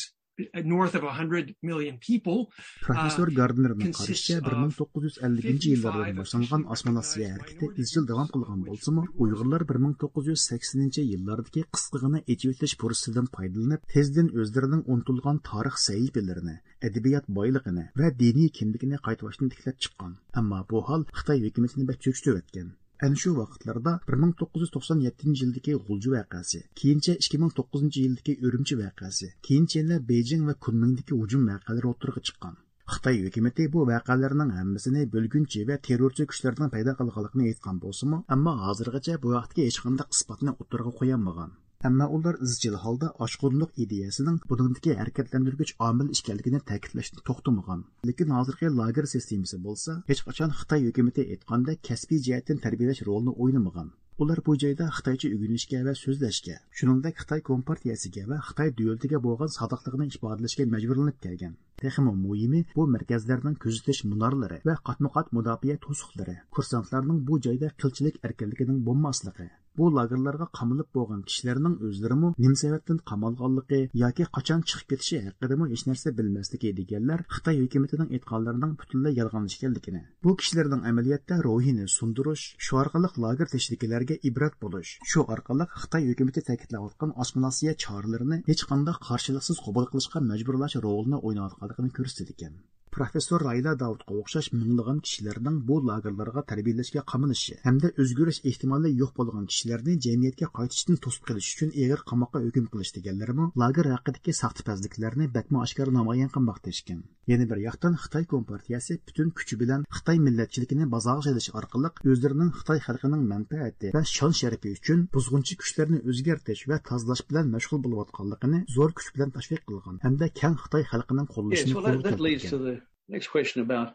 north of a hundred million people, uh, پروفېسسور گاردنېرنىڭ قارىشىچە، بىر مىڭ توققۇز يۈز ئەللىكىنچى يىللاردىن باشلانغان ئاسسىمىلياتسىيە ھەرىكىتى ئىزچىل داۋام قىلغان بولسىمۇ، ئۇيغۇرلار بىر مىڭ توققۇز يۈز سەكسىنىنچى يىللاردىكى قىسقىغىنە ئېچىۋېتىلىش پۇرسىتىدىن پايدىلىنىپ، تېزدىن ئۆزلىرىنىڭ ئۇنتۇلغان تارىخ سەھىپىلىرىنى، ئەدەبىيات بايلىقىنى ۋە دىنىي كىملىكىنى قايتا باشتىن تىكلەپ چىققان. ئەمما بۇ ھال خىتاي ھۆكۈمىتىنى بەك چۆچۈتۈۋەتكەن. ئەنە شۇ ۋاقىتلاردا بىر مىڭ توققۇز يۈز توقسان يەتتىنچى يىلدىكى غۇلجا ۋەقەسى، كېيىنچە ئىككى مىڭ توققۇزىنچى يىلدىكى ئۈرۈمچى ۋەقەسى، كېيىنچە يەنە بېيجىڭ ۋە كۇنمىڭدىكى ھۇجۇم ۋەقەلىرى ئوتتۇرىغا چىققان. خىتاي ھۆكۈمىتى بۇ ۋەقەلەرنىڭ ھەممىسىنى بۆلگۈنچى ۋە تېررورچى كۈچلەرنىڭ پەيدا قىلغانلىقىنى ئېيتقان بولسىمۇ، ئەمما ھازىرغىچە بۇ ھەقتىكى ھېچقانداق ئىسپاتنى ئوتتۇرىغا قويالمىغان. ئەمما ئۇلار ئىزچىل ھالدا ئاشقۇنلۇق ئىدىيەسىنىڭ بۇنىڭدىكى ھەرىكەتلەندۈرگۈچ ئامىل ئىكەنلىكىنى تەكىتلەشتىن توختىمىغان. لېكىن ھازىرقى لاگېر سىستېمىسى بولسا، ھېچقاچان خىتاي ھۆكۈمىتى ئېيتقاندەك كەسپىي جەھەتتىن تەربىيەلەش رولىنى ئوينىمىغان. ئۇلار بۇ جايدا خىتايچە ئۆگىنىشكە ۋە سۆزلەشكە، شۇنىڭدەك خىتاي كومپارتىيەسىگە ۋە خىتاي دۆلىتىگە بولغان سادىقلىقىنى ئىپادىلەشكە مەجبۇرلىنىپ كەلگەن. تېخىمۇ مۇھىمى، بۇ مەركەزلەرنىڭ كۆزىتىش مۇنارلىرى ۋە قاتمۇ قات مۇداپىئە توسۇقلىرى كۇرسانتلارنىڭ بۇ جايدا قىلچىلىك ئەركىنلىكىنىڭ بولماسلىقى، بۇ لاگېرلارغا قامىلىپ بولغان كىشىلەرنىڭ ئۆزلىرىمۇ نېمە سەۋەبتىن قامالغانلىقى ياكى قاچان چىقىپ كېتىشى ھەققىدىمۇ ھېچنەرسە بىلمەسلىكى دېگەنلەر خىتاي ھۆكۈمىتىنىڭ ئېيتقانلىرىنىڭ پۈتۈنلەي يالغان ئىكەنلىكىنى، بۇ كىشىلەرنىڭ ئەمەلىيەتتە روھىنى سۇندۇرۇش، شۇ ئارقىلىق لاگېر تېشىدىكىلەرگە ئىبرەت بولۇش، شۇ ئارقىلىق خىتاي ھۆكۈمىتى تەكىتلەۋاتقان ئاسسىمىلياتسىيە چارىلىرىنى ھېچقانداق قارشىلىقسىز قوبۇل قىلىشقا مەجبۇرلاش رولىنى ئويناۋاتقانلىقىنى كۆرسىتىدىكەن. پروفېسسور رايلا داۋۇتقا ئوخشاش مىڭلىغان كىشىلەرنىڭ بۇ لاگېرلارغا تەربىيەلەشكە قامىلىشى ھەمدە ئۆزگىرىش ئېھتىمالى يوق بولغان كىشىلەرنى جەمئىيەتكە قايتىشتىن توسۇپ قېلىش ئۈچۈن ئېغىر قاماققا ھۆكۈم قىلىش دېگەنلىرىمۇ لاگېر ھەققىدىكى ساختىپەزلىكلەرنى بەكمۇ ئاشكارا نامايان قىلماقتا ئىكەن. يەنە بىر ياقتىن، خىتاي كومپارتىيەسى پۈتۈن كۈچى بىلەن خىتاي مىللەتچىلىكىنى بازارغا سېلىش ئارقىلىق ئۆزلىرىنىڭ خىتاي خەلقىنىڭ مەنپەئەتى ۋە شان-شەرىپى ئۈچۈن بۇزغۇنچى كۈچلەرنى ئۆزگەرتىش ۋە تازىلاش بىلەن مەشغۇل بولۇۋاتقانلىقىنى زور كۈچ بىلەن تەشۋىق قىلغان ھەمدە كەڭ خىتاي خەلقىنىڭ قوللىشىنى قولغا كەلتۈرگەن. Next question about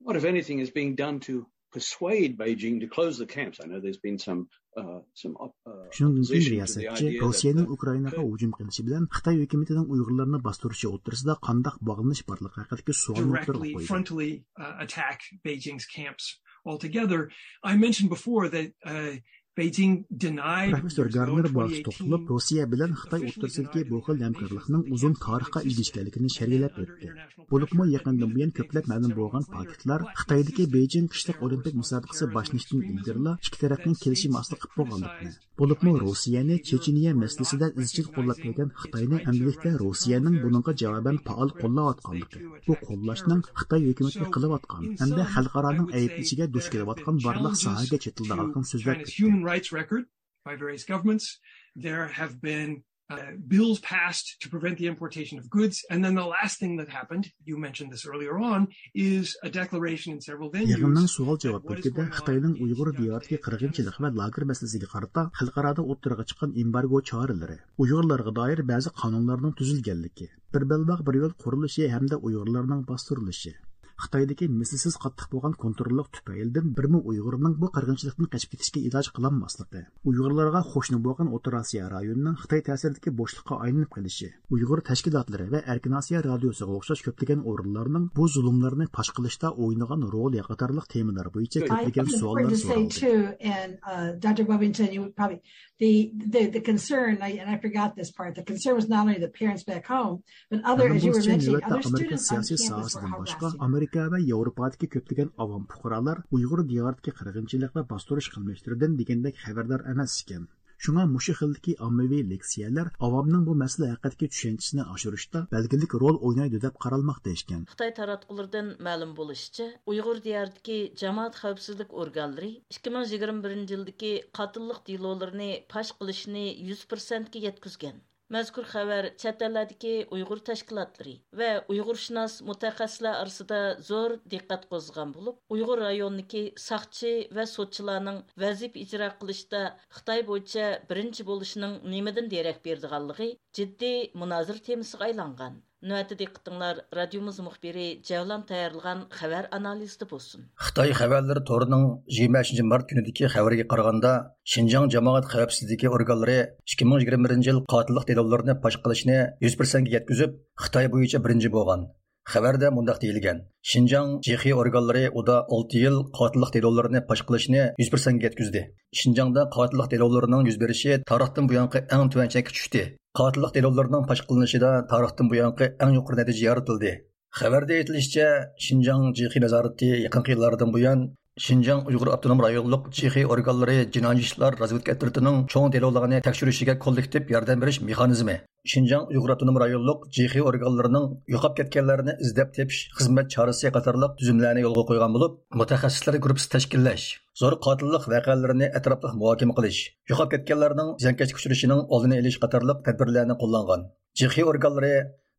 what, if anything, is being done to persuade Beijing to close the camps. I know there's been some, uh, some op- uh, شۇنىڭدىن كېيىن رىياسەتچى روسىيەنىڭ ئۇكرائىناغا ھۇجۇم قىلىشى بىلەن خىتاي ھۆكۈمىتىنىڭ ئۇيغۇرلارنى باستۇرۇشى ئوتتۇرىسىدا قانداق باغلىنىش بارلىقى ھەققىدىكى سوئالنى ئوتتۇرىغا قويدى. Frontally, uh, attack Beijing's camps altogether. I mentioned before that, uh, Beijing denied پروفېسسور گارنېر بۇ ھەقتە توختىلىپ، روسىيە بىلەن خىتاي ئوتتۇرىسىدىكى بۇ خىل ھەمكارلىقنىڭ ئۇزۇن تارىخقا ئىگە ئىكەنلىكىنى شەرھلەپ ئۆتتى. بولۇپمۇ يېقىندىن بۇيان كۆپلەپ مەلۇم بولغان پاكىتلار خىتايدىكى بېيجىڭ قىشلىق ئولىمپىك مۇسابىقىسى باشلىنىشتىن ئىلگىرىلا ئىككى تەرەپنىڭ كېلىشىمى ئاستىدا قىلىپ بولغانلىقىنى، بولۇپمۇ روسىيەنى چېچىنىيە مەسىلىسىدە ئىزچىل قوللاپ كەلگەن خىتاينى ئەمدىلىكتە روسىيەنىڭ بۇنىڭغا جاۋابەن پائال قوللاۋاتقانلىقى، بۇ قوللاشنىڭ خىتاي ھۆكۈمىتىنى قىلىۋاتقان ھەمدە خەلقئارانىڭ ئەيىبلىشىگە دۇچ كېلىۋاتقان بارلىق ساھەگە چېتىلىدىغانلىقىنى سۆزلەپ ئۆتتى. Human rights record by various governments. There have been uh, bills passed to prevent the importation of goods. And then the last thing that happened, you mentioned this earlier on, is a declaration in several venues. يىغىننىڭ سوئال-جاۋاب بۆلىكىدە خىتاينىڭ ئۇيغۇر دىيارىدىكى قىرغىنچىلىق ۋە لاگېر مەسىلىسىگە قارىتا خەلقئارادا ئوتتۇرىغا چىققان ئېمبارگو چارىلىرى، ئۇيغۇرلارغا دائىر بەزى قانۇنلارنىڭ تۈزۈلگەنلىكى، بىر بەلباغ بىر يول قۇرۇلۇشى ھەمدە ئۇيغۇرلارنىڭ باستۇرۇلۇشى، خىتايدىكى مىسلىسىز قاتتىق بولغان كونتروللۇق تۈپەيلىدىن بىرمۇ ئۇيغۇرنىڭ بۇ قىرغىنچىلىقتىن قېچىپ كېتىشكە ئىلاج قىلالماسلىقى، ئۇيغۇرلارغا قوشنا بولغان ئوتتۇرا ئاسىيا رايونىنىڭ خىتاي تەسىرىدىكى بوشلۇققا ئايلىنىپ قېلىشى، ئۇيغۇر تەشكىلاتلىرى ۋە ئەركىن ئاسىيا رادىيوسىغا ئوخشاش كۆپلىگەن ئورۇنلارنىڭ بۇ زۇلۇملارنى پاش قىلىشتا ئوينىغان رولى قاتارلىق تېمىلار بويىچە كۆپلىگەن سوئاللار سورالدى. Too, and, uh, Doctor Bovington, you would probably, the, the, the concern, I, and I forgot this part, the concern was not only the parents back home, But other, as you were mentioning, other students on campus were held hostage. مەلۇم بولۇشىچە، نۆۋەتتە ئامېرىكا سىياسىي ساھەسىدىن باشقا، ئامېرىكا ۋە ياۋروپادىكى كۆپلىگەن ئاۋام پۇقرالار ئۇيغۇر دىيارىدىكى قىرغىنچىلىق ۋە باستۇرۇش قىلمىشلىرىدىن دېگەندەك خەۋەردار ئەمەس ئىكەن. شۇڭا مۇشۇ خىلدىكى ئاممىۋى لېكسىيەلەر ئاۋامنىڭ بۇ مەسىلە ھەققىدىكى چۈشەنچىسىنى ئاشۇرۇشتا بەلگىلىك رول ئوينايدۇ دەپ قارالماقتا ئىكەن. خىتاي تاراتقۇلىرىدىن مەلۇم بولۇشىچە، ئۇيغۇر دىيارىدىكى جامائەت خەۋپسىزلىك ئورگانلىرى ئىككى مىڭ يىگىرمە بىرىنچى يىلدىكى قاتىللىق دېلولىرىنى پاش قىلىشنى يۈز پىرسەنتكە يەتكۈزگەن. مەزكۇر خەۋەر چەت ئەللەردىكى ئۇيغۇر تەشكىلاتلىرى ۋە ئۇيغۇرشۇناس مۇتەخەسسىسلەر ئارىسىدا زور دىققەت قوزغىغان بولۇپ، ئۇيغۇر رايونىدىكى ساقچى ۋە سوتچىلارنىڭ ۋەزىپە ئىجرا قىلىشتا خىتاي بويىچە بىرىنچى بولۇشىنىڭ نېمىدىن دېرەك بېرىدىغانلىقى جىددىي مۇنازىرە تېمىسىغا ئايلانغان. نۆۋەتتە دىققىتىڭلار رادىيومىز مۇخبىرى جەۋلان تەييارلىغان خەۋەر ئانالىزىدا بولسۇن. خىتاي خەۋەرلىرى تورىنىڭ يىگىرمە بەشىنچى مارت كۈنىدىكى خەۋىرىگە قارىغاندا، شىنجاڭ جامائەت خەۋپسىزلىكى ئورگانلىرى ئىككى مىڭ يىگىرمە بىرىنچى يىل قاتىللىق دېلولىرىنى پاش قىلىشنى يۈز پىرسەنتكە يەتكۈزۈپ، خىتاي بويىچە بىرىنچى بولغان. خەۋەردە مۇنداق دېيىلگەن: شىنجاڭ جېخې ئورگانلىرى ئۇدا ئالتە يىل قاتىللىق دېلولىرىنى پاش قىلىشنى يۈز پىرسەنتكە يەتكۈزدى. شىنجاڭدا قاتىللىق دېلولىرىنىڭ يۈز بېرىشى تارىختىن بۇيانقى ئەڭ تۆۋەن چەككە چۈشتى. قاتىللىق دېلولىرىنىڭ پاش قىلىنىشىدا تارىختىن بۇيانقى ئەڭ يۇقىرى نەتىجە يارىتىلدى. خەۋەردە ئېيتىلىشىچە، شىنجاڭ جېخې نازارىتى يېقىنقى يىللاردىن بۇيان شىنجاڭ ئۇيغۇر ئاپتونوم رايونلۇق جېخې ئورگانلىرى جىنايى ئىشلار رازۋېدكا ئەترىتىنىڭ چوڭ دېلولارنى تەكشۈرۈشىگە كوللېكتىپ ياردەم بېرىش مېخانىزمى، شىنجاڭ ئۇيغۇر ئاپتونوم رايونلۇق جېخې ئورگانلىرىنىڭ يوقاپ كەتكەنلەرنى ئىزدەپ تېپىش خىزمەت چارىسى قاتارلىق تۈزۈملەرنى يولغا قويغان بولۇپ، مۇتەخەسسىسلەر گۇرۇپپىسى تەشكىللەش، زور قاتىللىق ۋەقەلىرىنى ئەتراپلىق مۇھاكىمە قىلىش، يوقاپ كەتكەنلەرنىڭ زىيانكەشلىككە ئۇچرىشىنىڭ ئالدىنى ئېلىش قاتارلىق تەدبىرلەرنى قوللانغان. جېخې ئورگانلىرى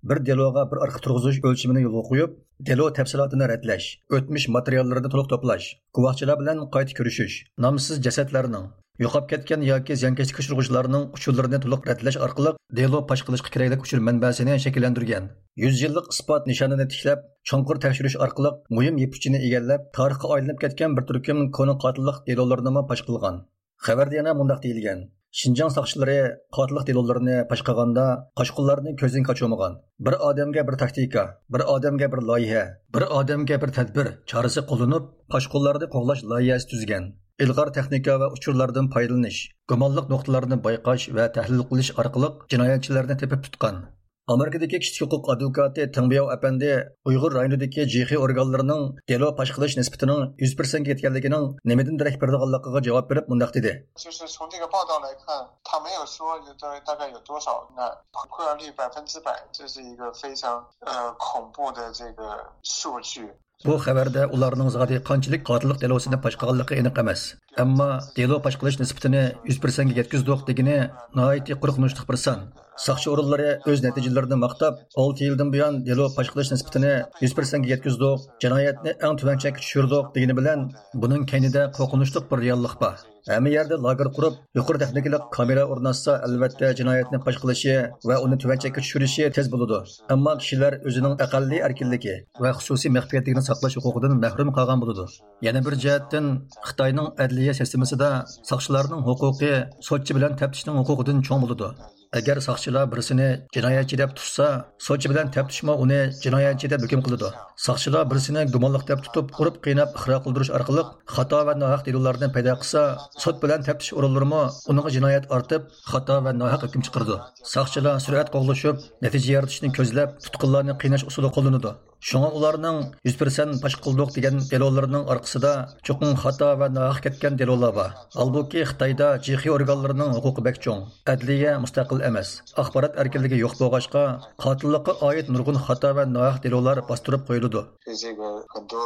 بىر دېلوغا بىر ئارخىپ تۇرغۇزۇش ئۆلچىمىنى يولغا قويۇپ، دېلو تەپسىلاتىنى رەتلەش، ئۆتمۈش ماتېرىياللىرىنى تولۇق توپلاش، گۇۋاھچىلار بىلەن قايتا كۆرۈشۈش، نامسىز جەسەتلەرنىڭ، يوقاپ كەتكەن ياكى زىيانكەشلىككە ئۇچرىغۇچىلارنىڭ ئۇچۇرلىرىنى تولۇق رەتلەش ئارقىلىق دېلو پاش قىلىشقا كېرەكلىك ئۇچۇر مەنبەسىنى شەكىللەندۈرگەن. يۈز يىللىق ئىسپات نىشانىنى تىكلەپ، چوڭقۇر تەكشۈرۈش ئارقىلىق مۇھىم يىپ ئۇچىنى ئىگىلەپ، تارىخقا ئايلىنىپ كەتكەن بىر تۈركۈم كونا قاتىللىق دېلولىرىنىمۇ پاش قىلغان. خەۋەردە يەنە مۇنداق دېيىلگەن: شىنجاڭ ساقچىلىرى قاتىللىق دېلولىرىنى پاش قىلغاندا، قاچقۇنلارنى كۆزدىن قاچۇرمىغان. بىر ئادەمگە بىر تاكتىكا، بىر ئادەمگە بىر لايىھە، بىر ئادەمگە بىر تەدبىر چارىسى قوللىنىپ، قاچقۇنلارنى قوغلاش لايىھەسى تۈزگەن. ئىلغار تېخنىكا ۋە ئۇچۇرلاردىن پايدىلىنىش، گۇمانلىق نۇقتىلارنى بايقاش ۋە تەھلىل قىلىش ئارقىلىق جىنايەتچىلەرنى تېپىپ تۇتقان. ئامېرىكىدىكى كىشىلىك ھوقۇق ئادۋوكاتى تېڭ بياۋ ئەپەندى ئۇيغۇر رايونىدىكى جىخې ئورگانلىرىنىڭ دېلو پاش قىلىش نىسبىتىنىڭ يۈز پىرسەنتكە يەتكەنلىكىنىڭ نېمىدىن دېرەك بېرىدىغانلىقىغا جاۋاب بېرىپ مۇنداق دېدى. 就是从这个报道来看，他没有说大概有多少呢？破案率百分之百，这是一个非常呃恐怖的这个数据。 بۇ خەۋەردە ئۇلارنىڭ زادى قانچىلىك قاتىللىق دېلوسىنى پاش قىلغانلىقى ئېنىق ئەمەس. ئەمما دېلو پاش قىلىش نىسبىتىنى يۈز پىرسەنتكە يەتكۈزدۇق دېگىنى ناھايىتى قورقۇنچلۇق بىر سان. ساقچى ئورۇنلىرى ئۆز نەتىجىلىرىنى ماختاپ، ئالتە يىلدىن بۇيان دېلو پاش قىلىش نىسبىتىنى يۈز پىرسەنتكە يەتكۈزدۇق، جىنايەتنى ئەڭ تۆۋەن چەككە چۈشۈردۇق دېگىنى بىلەن، بۇنىڭ كەينىدە قورقۇنچلۇق بىر رېئاللىق بار. ھەممە يەردە لاگېر قۇرۇپ، يۇقىرى تېخنىكىلىق كامېرا ئورناتسا، ئەلۋەتتە، جىنايەتنى پاش قىلىشى ۋە ئۇنى تۆۋەن چەككە چۈشۈرۈشى تېز بولىدۇ. ئەمما كىشىلەر ئۆزىنىڭ ئەقەللىي ئەركىنلىكى ۋە خۇسۇسىي مەخپىيەتلىكىنى ساقلاش ھوقۇقىدىن مەھرۇم قالغان بولىدۇ. يەنە بىر جەھەتتىن، خىتاينىڭ ئەدلىيە سىستېمىسىدا ساقچىلارنىڭ ھوقۇقى سوتچى بىلەن تەپتىشنىڭ ھوقۇقىدىن چوڭ بولىدۇ. ئەگەر ساقچىلار بىرسىنى جىنايەتچى دەپ تۇتسا، سوتچى بىلەن تەپتىشمۇ ئۇنى جىنايەتچى دەپ ھۆكۈم قىلىدۇ. ساقچىلار بىرسىنى گۇمانلىق دەپ تۇتۇپ، ئۇرۇپ قىيناپ ئىقرار قىلدۇرۇش ئارقىلىق خاتا ۋە ناھەق دېلولارنى پەيدا قىلسا، سوت بىلەن تەپتىش ئورۇنلىرىمۇ ئۇنىڭغا جىنايەت ئارتىپ، خاتا ۋە ناھەق ھۆكۈم چىقىرىدۇ. ساقچىلار سۈرئەت قوغلىشىپ، نەتىجە يارىتىشنى كۆزلەپ، تۇتقۇنلارنى قىيناش ئۇسۇلى قوللىنىدۇ. شۇڭا ئۇلارنىڭ يۈز پىرسەنت پاش قىلدۇق دېگەن دېلولىرىنىڭ ئارقىسىدا چوقۇم خاتا ۋە ناھەق كەتكەن دېلولار بار. ھالبۇكى، خىتايدا جىخې ئورگانلىرىنىڭ ھوقۇقى بەك چوڭ. ئەدلىيە مۇستەقىل ئەمەس. ئاخبارات ئەركىنلىكى يوق بولغاچقا، قاتىللىققا ئائىت نۇرغۇن خاتا ۋە ناھەق دېلولار باستۇرۇپ قويۇلىدۇ. 这个很多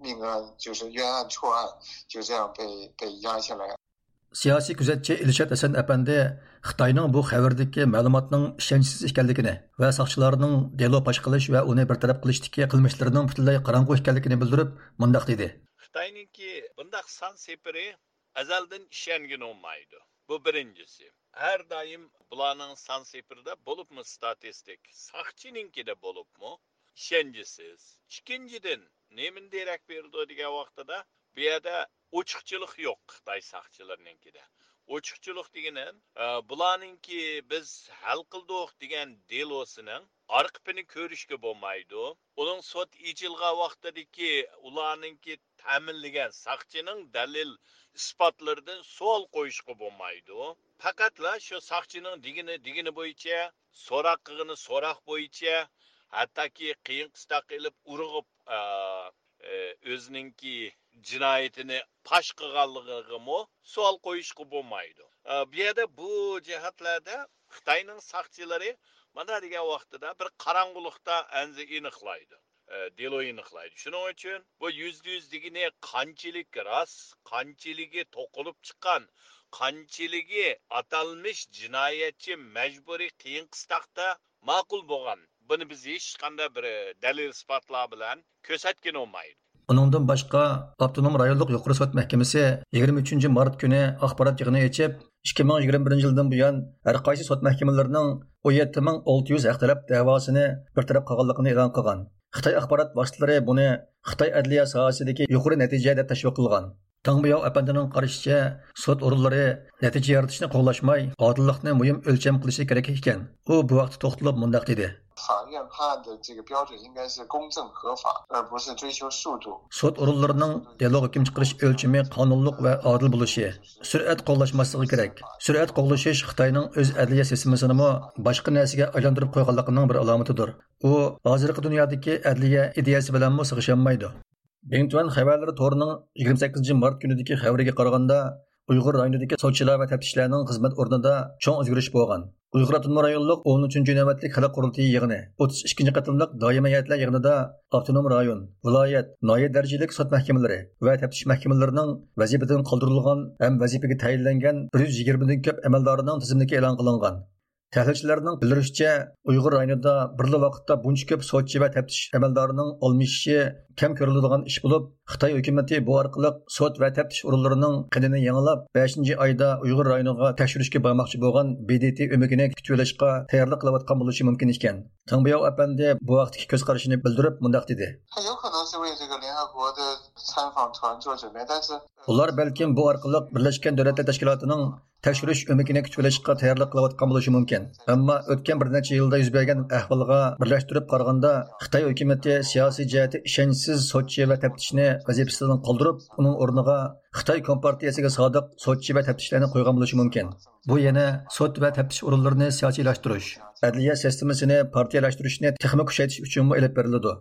命案就是冤案错案就这样被被压下来。 سىياسىي كۆزەتچى ئىلشات ھەسەن ئەپەندى خىتاينىڭ بۇ خەۋىرىدىكى مەلۇماتنىڭ ئىشەنچسىز ئىكەنلىكىنى ۋە ساقچىلارنىڭ دېلو پاش قىلىش ۋە ئۇنى بىر تەرەپ قىلىشتىكى قىلمىشلىرىنىڭ پۈتۈنلەي قاراڭغۇ ئىكەنلىكىنى بىلدۈرۈپ، مۇنداق دېدى. خىتاينىڭكى بۇنداق سان سېپىرى ئەزەلدىن ئىشەنگىلى بولمايدۇ. بۇ بىرىنچىسى. ھەر دائىم بۇلارنىڭ سان سېپىرىدا، بولۇپمۇ ستاتىستىك ساقچىنىڭكىدە بولۇپمۇ، ئىشەنچسىز. ئىككىنچىدىن، نېمىنى دېرەك بېرىدۇ دېگەن ۋاقتىدا، بۇ يەردە ئوچۇقچىلىق يوق خىتاي ساقچىلىرىنىڭكىدە. ئوچۇقچىلىق دېگىنى، ئە، بۇلارنىڭكى بىز ھەل قىلدۇق دېگەن دېلوسىنىڭ ئارقىپىنى كۆرۈشكە بولمايدۇ. ئۇنىڭ سوت ئېچىلغان ۋاقتىدىكى ئۇلارنىڭكى تەمىنلىگەن ساقچىنىڭ دەلىل ئىسپاتلىرىدىن سوئال قويۇشقا بولمايدۇ. پەقەتلا شۇ ساقچىنىڭ دېگىنى، دېگىنى بويىچە، سوراق قىلغىنى سوراق بويىچە، ھەتتاكى قىيىن قىستاق ئېلىپ ئۇرغۇپ، ئا، ئە، ئۆزىنىڭكى جىنايىتىنى پاش قىلغانلىقىغىمۇ سوئال قويۇشقا بولمايدۇ. ئە، بۇ يەردە بۇ جەھەتلەردە خىتاينىڭ ساقچىلىرى مانا دېگەن ۋاقتىدا بىر قاراڭغۇلۇقتا ئەنزە ئېنىقلايدۇ. ئە، دېلو ئېنىقلايدۇ. شۇنىڭ ئۈچۈن بۇ يۈزدە يۈز دېگىنى قانچىلىك راست، قانچىلىكى توقۇلۇپ چىققان، قانچىلىكى ئاتالمىش جىنايەتچى مەجبۇرىي قىيىن قىستاقتا ماقۇل بولغان. بۇنى بىز ھېچقانداق بىر دەلىل ئىسپاتلار بىلەن كۆرسەتكىلى بولمايدۇ. ئۇنىڭدىن باشقا، ئاپتونوم رايونلۇق يۇقىرى سوت مەھكىمىسى يىگىرمە ئۈچىنچى مارت كۈنى ئاخبارات يىغىنى ئېچىپ، ئىككى مىڭ يىگىرمە بىرىنچى يىلدىن بۇيان ھەر قايسى سوت مەھكىمىلىرىنىڭ ئون يەتتە مىڭ ئالتە يۈز ھەق تەلەپ دەۋاسىنى بىر تەرەپ قىلغانلىقىنى ئېلان قىلغان. خىتاي ئاخبارات ۋاسىتىلىرى بۇنى خىتاي ئەدلىيە ساھەسىدىكى يۇقىرى نەتىجە دەپ تەشۋىق قىلغان. تاڭ بىياۋ ئەپەندىنىڭ قارىشىچە، سوت ئورۇنلىرى نەتىجە يارىتىشنى قوغلاشماي، ئادىللىقنى مۇھىم ئۆلچەم قىلىشى كېرەك ئىكەن. ئۇ بۇ ھەقتە توختىلىپ مۇنداق دېدى. 法院判案的这个标准应该是公正合法，而不是追求速度。 سوت ئورۇنلىرىنىڭ دېلو ھۆكۈم چىقىرىش ئۆلچىمى قانۇنلۇق ۋە ئادىل بولۇشى، سۈرئەت قوغلاشماسلىقى كېرەك. سۈرئەت قوغلىشىش خىتاينىڭ ئۆز ئەدلىيە سىستېمىسىنىمۇ باشقا نەرسىگە ئايلاندۇرۇپ قويغانلىقىنىڭ بىر ئالامىتىدۇر. ئۇ ھازىرقى دۇنيادىكى ئەدلىيە ئىدىيەسى بىلەنمۇ سىغىشالمايدۇ. بىڭتۈەن خەۋەرلىرى تورىنىڭ يىگىرمە سەككىزىنچى مارت كۈنىدىكى خەۋىرىگە قارىغاندا، ئۇيغۇر رايونىدىكى سوتچىلار ۋە تەپتىشلەرنىڭ خىزمەت ئورنىدا چوڭ ئۆزگىرىش بولغان. ئۇيغۇر ئاپتونوم رايونلۇق ئون ئۈچىنچى نۆۋەتلىك خەلق قۇرۇلتىيى يىغىنى، ئوتتۇز ئىككىنچى قېتىملىق دائىمىي ھەيئەتلەر يىغىنىدا ئاپتونوم رايون، ۋىلايەت، ناھىيە دەرىجىلىك سوت مەھكىمىلىرى ۋە تەپتىش مەھكىمىلىرىنىڭ ۋەزىپىدىن قالدۇرۇلغان ھەم ۋەزىپىگە تەيىنلەنگەن بىر يۈز يىگىرمىدىن كۆپ ئەمەلدارىنىڭ تىزىملىكى ئېلان قىلىنغان. تەھلىلچىلەرنىڭ بىلدۈرۈشىچە، ئۇيغۇر رايونىدا بىرلا ۋاقىتتا بۇنچە كۆپ سوتچى ۋە تەپتىش ئەمەلدارىنىڭ ئالمىشىشى كەم كۆرۈلىدىغان ئىش بولۇپ، خىتاي ھۆكۈمىتى بۇ ئارقىلىق سوت ۋە تەپتىش ئورۇنلىرىنىڭ قېنىنى يېڭىلاپ، بەشىنچى ئايدا ئۇيغۇر رايونىغا تەكشۈرۈشكە بارماقچى بولغان بى دى تى ئۆمىكىنى كۈتۈۋېلىشقا تەييارلىق قىلىۋاتقان بولۇشى مۇمكىن ئىكەن. تاڭ بىياۋ ئەپەندى بۇ ھەقتىكى كۆز قارىشىنى بىلدۈرۈپ مۇنداق دېدى. 他有可能是为这个联合国的参访团做准备，但是 ئۇلار بەلكىم بۇ ئارقىلىق بىرلەشكەن دۆلەتلەر تەشكىلاتىنىڭ تەكشۈرۈش ئۆمىكىنى كۈتۈۋېلىشقا تەييارلىق قىلىۋاتقان بولۇشى مۇمكىن. ئەمما ئۆتكەن بىر نەچچە يىلدا يۈز بەرگەن ئەھۋالغا بىرلەشتۈرۈپ قارىغاندا، خىتاي ھۆكۈمىتى سىياسىي جەھەتتە ئىشەنچسىز سوتچى ۋە تەپتىشنى ۋەزىپىسىدىن قالدۇرۇپ، ئۇنىڭ ئورنىغا خىتاي كومپارتىيەسىگە سادىق سوتچى ۋە تەپتىشلەرنى قويغان بولۇشى مۇمكىن. بۇ يەنە سوت ۋە تەپتىش ئورۇنلىرىنى سىياسىيلاشتۇرۇش، ئەدلىيە سىستېمىسىنى پارتىيەلەشتۈرۈشنى تېخىمۇ كۈچەيتىش ئۈچۈنمۇ ئېلىپ بېرىلىدۇ.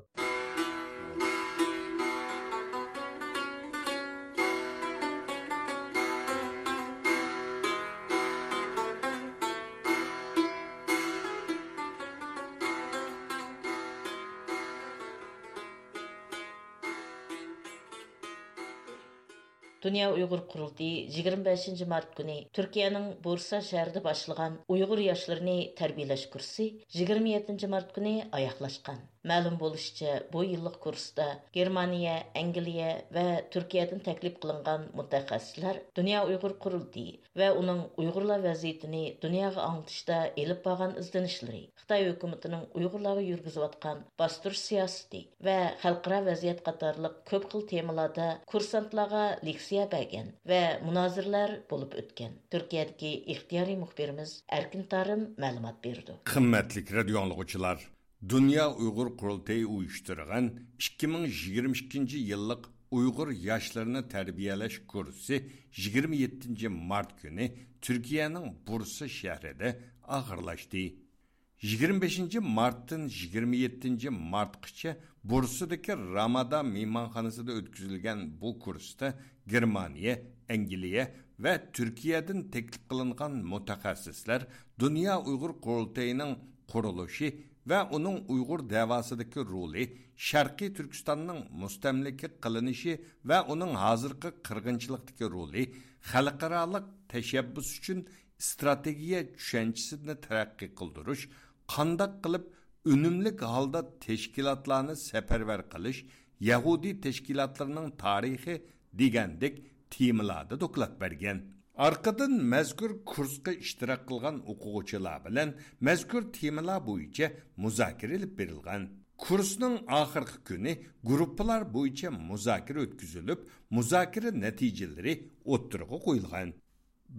دۇنيا ئۇيغۇر قۇرۇلتىيى يىگىرمە بەشىنچى مارت كۈنى تۈركىيەنىڭ بۇرسا شەھىرىدە باشلىغان ئۇيغۇر ياشلىرىنى تەربىيەلەش كۇرسى يىگىرمە يەتتىنچى مارت كۈنى ئاياغلاشقان. مەلۇم بولۇشىچە، بۇ يىللىق كۇرستا گېرمانىيە، ئەنگلىيە ۋە تۈركىيەدىن تەكلىپ قىلىنغان مۇتەخەسسىسلەر دۇنيا ئۇيغۇر قۇرۇلتىيى ۋە ئۇنىڭ ئۇيغۇرلار ۋەزىيىتىنى دۇنياغا ئاڭلىتىشتا ئېلىپ بارغان ئىزدىنىشلىرى، خىتاي ھۆكۈمىتىنىڭ ئۇيغۇرلارغا يۈرگۈزۈۋاتقان باستۇرۇش سىياسىتى ۋە خەلقئارا ۋەزىيەت قاتارلىق كۆپ خىل تېمىلاردا كۇرسانتلارغا لېكسىيە بەرگەن ۋە مۇنازىرىلەر بولۇپ ئۆتكەن. تۈركىيەدىكى ئىختىيارىي مۇخبىرىمىز ئەركىن تارىم مەلۇمات بېرىدۇ. قىممەتلىك رادىيو ئاڭلىغۇچىلار، دۇنيا ئۇيغۇر قۇرۇلتىيى ئۇيۇشتۇرغان ئىككى مىڭ يىگىرمە ئىككىنچى يىللىق ئۇيغۇر ياشلىرىنى تەربىيەلەش كۇرسى يىگىرمە يەتتىنچى مارت كۈنى تۈركىيەنىڭ بۇرسا شەھىرىدە ئاخىرلاشتى. يىگىرمە بەشىنچى مارتتىن يىگىرمە يەتتىنچى مارتقىچە بۇرسىدىكى رامادا مېھمانخانىسىدا ئۆتكۈزۈلگەن بۇ كۇرستا گېرمانىيە، ئەنگلىيە ۋە تۈركىيەدىن تەكلىپ قىلىنغان مۇتەخەسسىسلەر دۇنيا ئۇيغۇر قۇرۇلتىيىنىڭ قۇرۇلۇشى ۋە ئۇنىڭ ئۇيغۇر دەۋاسىدىكى رولى، شەرقىي تۈركىستاننىڭ مۇستەملىكە قىلىنىشى ۋە ئۇنىڭ ھازىرقى قىرغىنچىلىقتىكى رولى، خەلقئارالىق تەشەببۇس ئۈچۈن ئىستراتېگىيە چۈشەنچىسىنى تەرەققىي قىلدۇرۇش، قانداق قىلىپ ئۈنۈملۈك ھالدا تەشكىلاتلارنى سەپەرۋەر قىلىش، يەھۇدىي تەشكىلاتلىرىنىڭ تارىخى دېگەندەك تېمىلاردا دوكلات بەرگەن. ئارقىدىن مەزكۇر كۇرسقا ئىشتىراك قىلغان ئوقۇغۇچىلار بىلەن مەزكۇر تېمىلار بويىچە مۇزاكىرە ئېلىپ بېرىلغان. كۇرسنىڭ ئاخىرقى كۈنى گۇرۇپپىلار بويىچە مۇزاكىرە ئۆتكۈزۈلۈپ، مۇزاكىرە نەتىجىلىرى ئوتتۇرىغا قويۇلغان.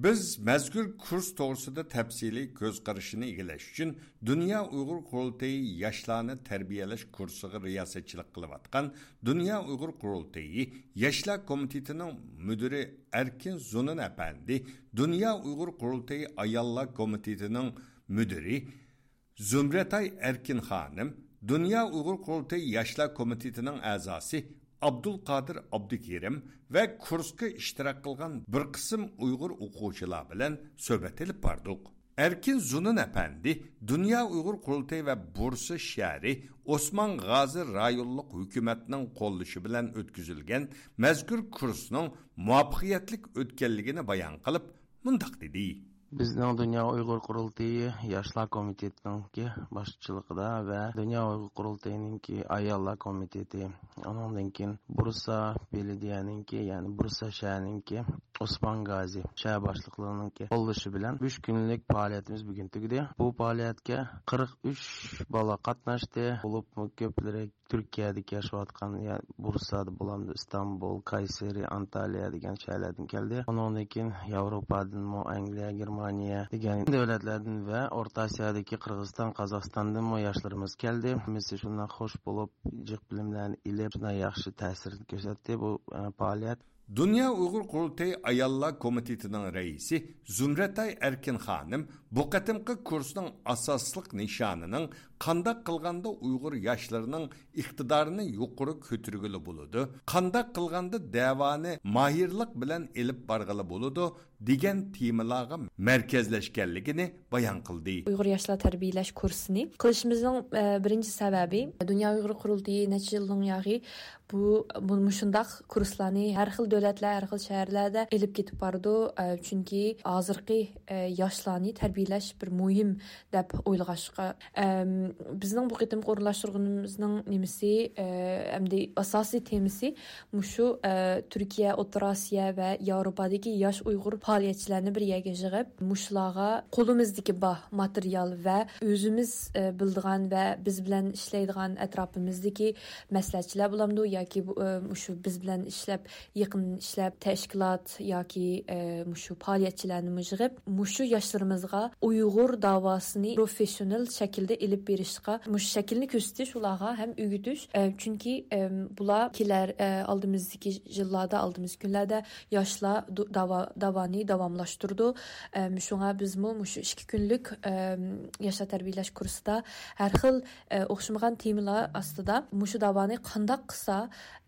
بىز مەزكۇر كۇرس توغرىسىدا تەپسىلىي كۆز قارىشىنى ئىگىلەش ئۈچۈن، دۇنيا ئۇيغۇر قۇرۇلتىيى ياشلارنى تەربىيەلەش كۇرسىغا رىياسەتچىلىك قىلىۋاتقان دۇنيا ئۇيغۇر قۇرۇلتىيى ياشلار كومىتېتىنىڭ مۇدىرى ئەركىن زۇنۇن ئەپەندى، دۇنيا ئۇيغۇر قۇرۇلتىيى ئاياللار كومىتېتىنىڭ مۇدىرى زۇمرەتئاي ئەركىن خانىم، دۇنيا ئۇيغۇر قۇرۇلتىيى ياشلار كومىتېتىنىڭ ئەزاسى ئابدۇلقادىر ئابدۇكېرىم ۋە كۇرسقا ئىشتىراك قىلغان بىر قىسىم ئۇيغۇر ئوقۇغۇچىلار بىلەن سۆھبەت ئېلىپ باردۇق. ئەركىن زۇنۇن ئەپەندى دۇنيا ئۇيغۇر قۇرۇلتىيى ۋە بۇرسا شەھىرى ئوسمان غازى رايونلۇق ھۆكۈمەتنىڭ قوللىشى بىلەن ئۆتكۈزۈلگەن مەزكۇر كۇرسنىڭ مۇۋەپپەقىيەتلىك ئۆتكەنلىكىنى بايان قىلىپ، مۇنداق دېدى. بىزنىڭ دۇنيا ئۇيغۇر قۇرۇلتىيى ياشلار كومىتېتىنىڭكى باشچىلىقىدا ۋە دۇنيا ئۇيغۇر قۇرۇلتىيىنىڭكى ئاياللار كومىتېتى، ئۇنىڭدىن كېيىن بۇرسا بېلىدىيەنىڭكى، يەنى بۇرسا شەھەرنىڭكى ئوسمان غازى شەھەر باشلىقلىرىنىڭكى قوللىشى بىلەن ئۈچ كۈنلۈك پائالىيىتىمىز بۈگۈن تۈگىدى. بۇ پائالىيەتكە قىرىق ئۈچ بالا قاتناشتى. بولۇپمۇ كۆپلىرى تۈركىيەدىكى ياشاۋاتقان، يا بۇرسادا بولامدۇ، ئىستانبۇل، كايسېرى، ئانتالىيە دېگەن شەھەرلەردىن كەلدى. ئۇنىڭدىن كېيىن ياۋروپادىنمۇ، ئەنگلىيە، گېرمانىيە دېگەن دۆلەتلەردىن ۋە ئورتا ئاسىيادىكى قىرغىزىستان، قازاقىستاندىنمۇ ياشلىرىمىز كەلدى. ھەممىسى شۇنداق خوش بولۇپ، جىق بىلىملەرنى ئېلىپ، شۇنداق ياخشى تەسىر كۆرسەتتى بۇ، ئە، پائالىيەت. دۇنيا ئۇيغۇر قۇرۇلتىيى ئاياللار كومىتېتىنىڭ رەئىسى زۇمرەتئاي ئەركىن خانىم بۇ قېتىمقى كۇرسنىڭ ئاساسلىق نىشانىنىڭ قانداق قىلغاندا ئۇيغۇر ياشلىرىنىڭ ئىقتىدارىنى يۇقىرى كۆتۈرگىلى بولىدۇ، قانداق قىلغاندا دەۋانى ماھىرلىق بىلەن ئېلىپ بارغىلى بولىدۇ دېگەن تېمىلارغا مەركەزلەشكەنلىكىنى بايان قىلدى. ئۇيغۇر ياشلار تەربىيەلەش كۇرسىنى قىلىشىمىزنىڭ، ئە، بىرىنچى سەۋەبى، دۇنيا ئۇيغۇر قۇرۇلتىيى نەچچە يىلدىن ياغى بۇ، بۇ مۇشۇنداق كۇرسلارنى ھەر خىل دۆلەتلەر، ھەر خىل شەھەرلەردە ئېلىپ كېتىپ بارىدۇ. ئە، چۈنكى ھازىرقى، ئە، ياشلارنى تەربىيەلەش بىر مۇھىم دەپ ئويلىغاچقا، ئەم، بىزنىڭ بۇ قېتىمقى ئورۇنلاشتۇرغىنىمىزنىڭ نېمىسى، ئە، ئەمدى ئاساسىي تېمىسى مۇشۇ، ئە، تۈركىيە، ئوتتۇرا ئاسىيا ۋە ياۋروپادىكى ياش ئۇيغۇر پائالىيەتچىلەرنى بىر يەرگە يىغىپ، مۇشۇلارغا قولىمىزدىكى بار ماتېرىيال ۋە ئۆزىمىز، ئە، بىلىدىغان ۋە بىز بىلەن ئىشلەيدىغان ئەتراپىمىزدىكى مەسلىھەتچىلەر بولامدۇ ياكى بۇ، ئە، مۇشۇ بىز بىلەن ئىشلەپ، يېقىن ئىشلەپ، تەشكىلات ياكى، ئە، مۇشۇ پائالىيەتچىلەرنىمۇ يىغىپ، مۇشۇ ياشلىرىمىزغا ئۇيغۇر داۋاسىنى پروفېسسىونال شەكىلدە ئېلىپ بېرىشقا، مۇشۇ شەكىلنى كۆرسىتىش ئۇلارغا ھەم ئۆگىتىش. ئە، چۈنكى، ئەم، بۇلار كېلەر، ئە، ئالدىمىزدىكى يىللاردا، ئالدىمىزدىكى كۈنلەردە ياشلار دۇ-، داۋا-، داۋانى داۋاملاشتۇرىدۇ. ئەم، شۇڭا بىزمۇ مۇشۇ ئىككى كۈنلۈك، ئەم، ياشلار تەربىيەلەش كۇرسىدا ھەر خىل، ئە، ئوخشىمىغان تېمىلار ئاستىدا مۇشۇ داۋانى قانداق قىلسا،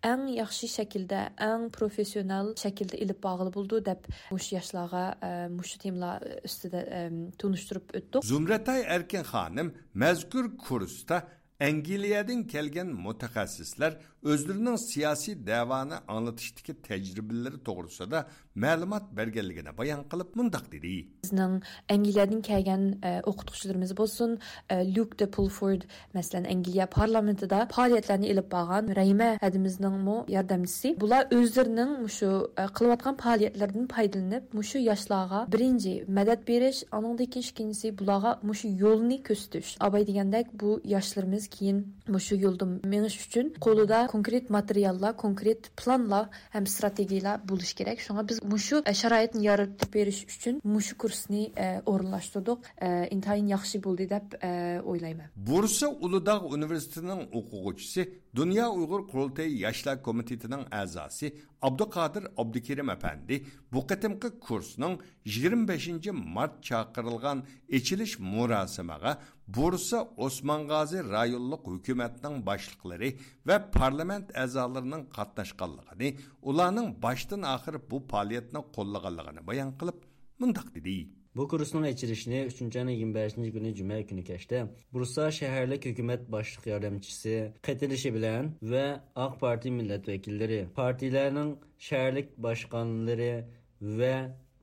ئەڭ ياخشى شەكىلدە، ئەڭ پروفېسسىونال شەكىلدە ئېلىپ بارغىلى بولىدۇ دەپ، مۇشۇ ياشلارغا، ئە، مۇشۇ تېمىلار ئۈستىدە، ئەم، تونۇشتۇرۇپ ئۆتتۇق. زۇمرەتئاي ئەركىن خانىم مەزكۇر كۇرستا ئەنگلىيەدىن كەلگەن مۇتەخەسسىسلەر ئۆزلىرىنىڭ سىياسىي دەۋانى ئاڭلىتىشتىكى تەجرىبىلىرى توغرىسىدا مەلۇمات بەرگەنلىكىنى بايان قىلىپ، مۇنداق دېدى. بىزنىڭ ئەنگلىيەدىن كەلگەن، ئە، ئوقۇتقۇچىلىرىمىز بولسۇن، ئە، لۇك دە پۇلفورد، مەسىلەن، ئەنگلىيە پارلامېنتىدا پائالىيەتلەرنى ئېلىپ بارغان رەھىمە ھەدىمىزنىڭمۇ ياردەمچىسى. بۇلار ئۆزلىرىنىڭ مۇشۇ، ئە، قىلىۋاتقان پائالىيەتلىرىدىن پايدىلىنىپ، مۇشۇ ياشلارغا بىرىنچى مەدەت بېرىش، ئاندىن كېيىن ئىككىنچىسى بۇلارغا مۇشۇ يولنى كۆرسىتىش. ئاباي دېگەندەك، بۇ ياشلىرىمىز كېيىن مۇشۇ يولدا مېڭىش ئۈچۈن قولىدا كونكرېت ماتېرىياللار، كونكرېت پىلانلار ھەم ئىستراتېگىيەلار بولۇشى كېرەك. شۇڭا بىز مۇشۇ، ئە، شارائىتنى يارىتىپ بېرىش ئۈچۈن مۇشۇ كۇرسنى، ئە، ئورۇنلاشتۇردۇق. ئە، ئىنتايىن ياخشى بولدى دەپ، ئە، ئويلايمەن. بۇرسا ئۇلۇداغ ئۇنىۋېرسىتېتىنىڭ ئوقۇغۇچىسى، دۇنيا ئۇيغۇر قۇرۇلتىيى ياشلار كومىتېتىنىڭ ئەزاسى ئابدۇقادىر ئابدۇكېرىم ئەپەندى بۇ قېتىمقى كۇرسنىڭ يىگىرمە بەشىنچى مارت چاقىرىلغان ئېچىلىش مۇراسىمىغا بۇرسا ئوسمان غازى رايونلۇق ھۆكۈمەتنىڭ باشلىقلىرى ۋە پارلامېنت ئەزالىرىنىڭ قاتناشقانلىقىنى، ئۇلارنىڭ باشتىن ئاخىر بۇ پائالىيەتنى قوللىغانلىقىنى بايان قىلىپ، مۇنداق دېدى. بۇ كۇرسنىڭ ئېچىلىشىنى ئۈچىنچى ئاينىڭ يىگىرمە بەشىنچى كۈنى جۈمە كۈنى كەچتە بۇرسا شەھەرلىك ھۆكۈمەت باشلىق ياردەمچىسى قېتىلىشى بىلەن ۋە ئاق پارتىيە مىللەت ۋەكىللىرى، پارتىيىلەرنىڭ شەھەرلىك باشقانلىرى ۋە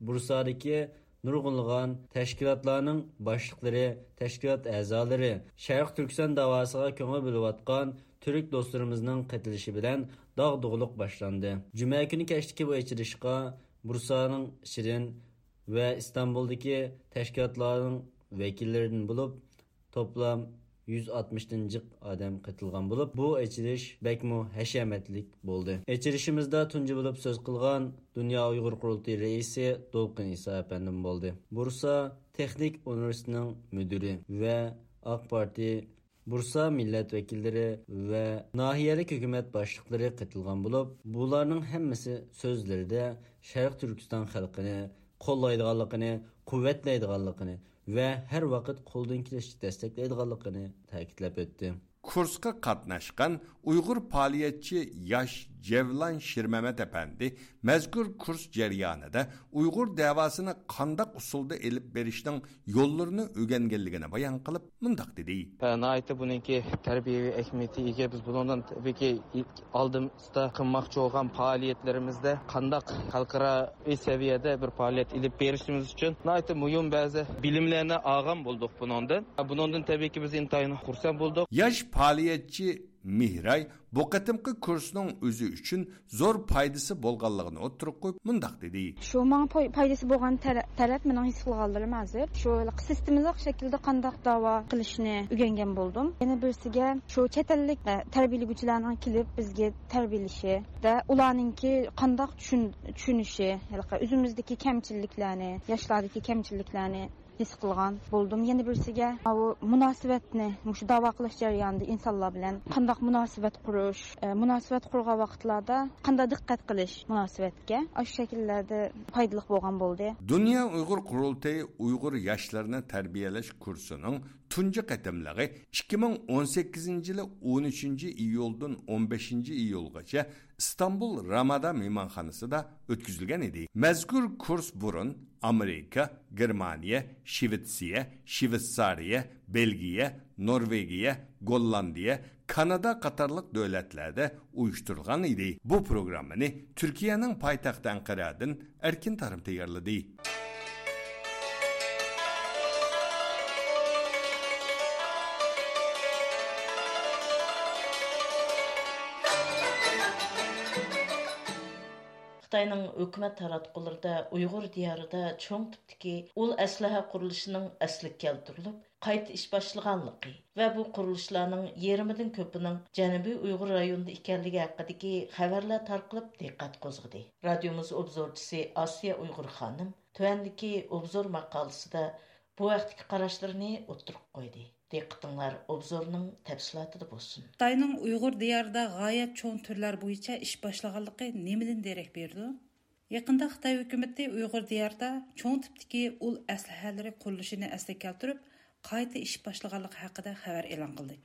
بۇرسادىكى نۇرغۇنلىغان تەشكىلاتلارنىڭ باشلىقلىرى، تەشكىلات ئەزالىرى، شەرقىي تۈركىستان داۋاسىغا كۆڭۈل بۆلۈۋاتقان تۈرك دوستلىرىمىزنىڭ قېتىلىشى بىلەن داغدۇغىلىق باشلاندى. جۈمە كۈنى كەچتىكى بۇ ئېچىلىشقا بۇرسانىڭ شىرىن ۋە ئىستانبۇلدىكى تەشكىلاتلارنىڭ ۋەكىللىرىدىن بولۇپ، توپلام يۈز ئاتمىشتىن جىق ئادەم قېتىلغان بولۇپ، بۇ ئېچىلىش بەكمۇ ھەشەمەتلىك بولدى. ئېچىلىشىمىزدا تۇنجى بولۇپ سۆز قىلغان دۇنيا ئۇيغۇر قۇرۇلتىيى رەئىسى دولقۇن ئىسا ئەپەندىم بولدى. بۇرسا تېخنىك ئۇنىۋېرسىتېتىنىڭ مۇدىرى ۋە ئاق پارتىيە بۇرسا مىللەت ۋەكىللىرى ۋە ناھىيەلىك ھۆكۈمەت باشلىقلىرى قېتىلغان بولۇپ، بۇلارنىڭ ھەممىسى سۆزلىرىدە شەرقىي تۈركىستان خەلقىنى قوللايدىغانلىقىنى، قۇۋۋەتلەيدىغانلىقىنى ۋە ھەر ۋاقىت قولدىن كېلىشىچە دەستەكلەيدىغانلىقىنى تەكىتلەپ ئۆتتى. كۇرسقا قاتناشقان ئۇيغۇر پائالىيەتچى ياش جەۋلان شىرمەمەت ئەپەندى مەزكۇر كۇرس جەريانىدا ئۇيغۇر دەۋاسىنى قانداق ئۇسۇلدا ئېلىپ بېرىشنىڭ يوللىرىنى ئۆگەنگەنلىكىنى بايان قىلىپ، مۇنداق دېدى. ناھايىتى بۇنىڭكى تەربىيەۋى ئەھمىيىتى ئىگە. بىز بۇنىڭدىن تەبىئىيكى ئالدىمىزدا قىلماقچى بولغان پائالىيەتلىرىمىزدە قانداق خەلقئارا سەۋىيەدە بىر پائالىيەت ئېلىپ بېرىشىمىز ئۈچۈن ناھايىتى مۇھىم بەزى بىلىملەرنى ئالغان بولدۇق بۇنىڭدىن. بۇنىڭدىن تەبىئىيكى بىز ئىنتايىن خۇرسەن بولدۇق. ياش پائالىيەتچى مېھراي بۇ قېتىمقى كۇرسنىڭ ئۆزى ئۈچۈن زور پايدىسى بولغانلىقىنى ئوتتۇرىغا قويۇپ، مۇنداق دېدى. شۇ ماڭا پاي-، پايدىسى بولغان تەرە-، تەرەپ مېنىڭ ھېس قىلغانلىرىم ھازىر شۇ سىستېمىلىق شەكىلدە قانداق داۋا قىلىشنى ئۆگەنگەن بولدۇم. يەنە بىرسىگە شۇ چەت ئەللىك، ئە، تەربىيەلىگۈچىلەرنىڭ كېلىپ بىزگە تەربىيەلىشى ۋە ئۇلارنىڭكى قانداق چۈشىن-، چۈشىنىشى، ھېلىقى ئۆزىمىزدىكى كەمچىلىكلەرنى، ياشلاردىكى كەمچىلىكلەرنى ھېس قىلغان بولدۇم. يەنە بىرسىگە، ماۋۇ مۇناسىۋەتنى، مۇشۇ داۋا قىلىش جەريانىدا ئىنسانلار بىلەن قانداق مۇناسىۋەت قۇرۇش، ئە، مۇناسىۋەت قۇرغان ۋاقىتلاردا قانداق دىققەت قىلىش مۇناسىۋەتكە، ئاشۇ شەكىللەردە پايدىلىق بولغان بولدى. دۇنيا ئۇيغۇر قۇرۇلتىيى ئۇيغۇر ياشلىرىنى تەربىيەلەش كۇرسىنىڭ تۇنجى قېتىملىقى ئىككى مىڭ ئون سەككىزىنچى يىلى ئون ئۈچىنچى ئىيۇلدىن ئون بەشىنچى ئىيۇلغىچە ئىستانبۇل رامادا مېھمانخانىسىدا ئۆتكۈزۈلگەن ئىدى. مەزكۇر كۇرس بۇرۇن ئامېرىكا، گېرمانىيە، شىۋېتسىيە، شىۋېتسارىيە، بېلگىيە، نورۋېگىيە، گوللاندىيە، كانادا قاتارلىق دۆلەتلەردە ئۇيۇشتۇرۇلغان ئىدى. بۇ پروگراممىنى تۈركىيەنىڭ پايتەختى ئەنقەرەدىن ئەركىن تارىم تەييارلىدى. خىتاينىڭ ھۆكۈمەت تاراتقۇلىرىدا ئۇيغۇر دىيارىدا چوڭ تىپتىكى ئۇل ئەسلىھە قۇرۇلۇشىنىڭ ئەسلىگە كەلتۈرۈلۈپ، قايتا ئىش باشلىغانلىقى ۋە بۇ قۇرۇلۇشلارنىڭ يېرىمىدىن كۆپىنىڭ جەنۇبىي ئۇيغۇر رايونىدا ئىكەنلىكى ھەققىدىكى خەۋەرلەر تارقىلىپ دىققەت قوزغىدى. رادىيومىز ئوبزورچىسى ئاسىيە ئۇيغۇر خانىم تۆۋەندىكى ئوبزور ماقالىسىدا بۇ ھەقتىكى قاراشلىرىنى ئوتتۇرىغا قويدى. دىققىتىڭلار ئوبزورنىڭ تەپسىلاتىدا بولسۇن. خىتاينىڭ ئۇيغۇر دىيارىدا غايەت چوڭ تۈرلەر بويىچە ئىش باشلىغانلىقى نېمىدىن دېرەك بېرىدۇ؟ يېقىندا خىتاي ھۆكۈمىتى ئۇيغۇر دىيارىدا چوڭ تىپتىكى ئۇل ئەسلىھەلىرى قۇرۇلۇشىنى ئەسلىگە كەلتۈرۈپ، قايتا ئىش باشلىغانلىقى ھەققىدە خەۋەر ئېلان قىلدى.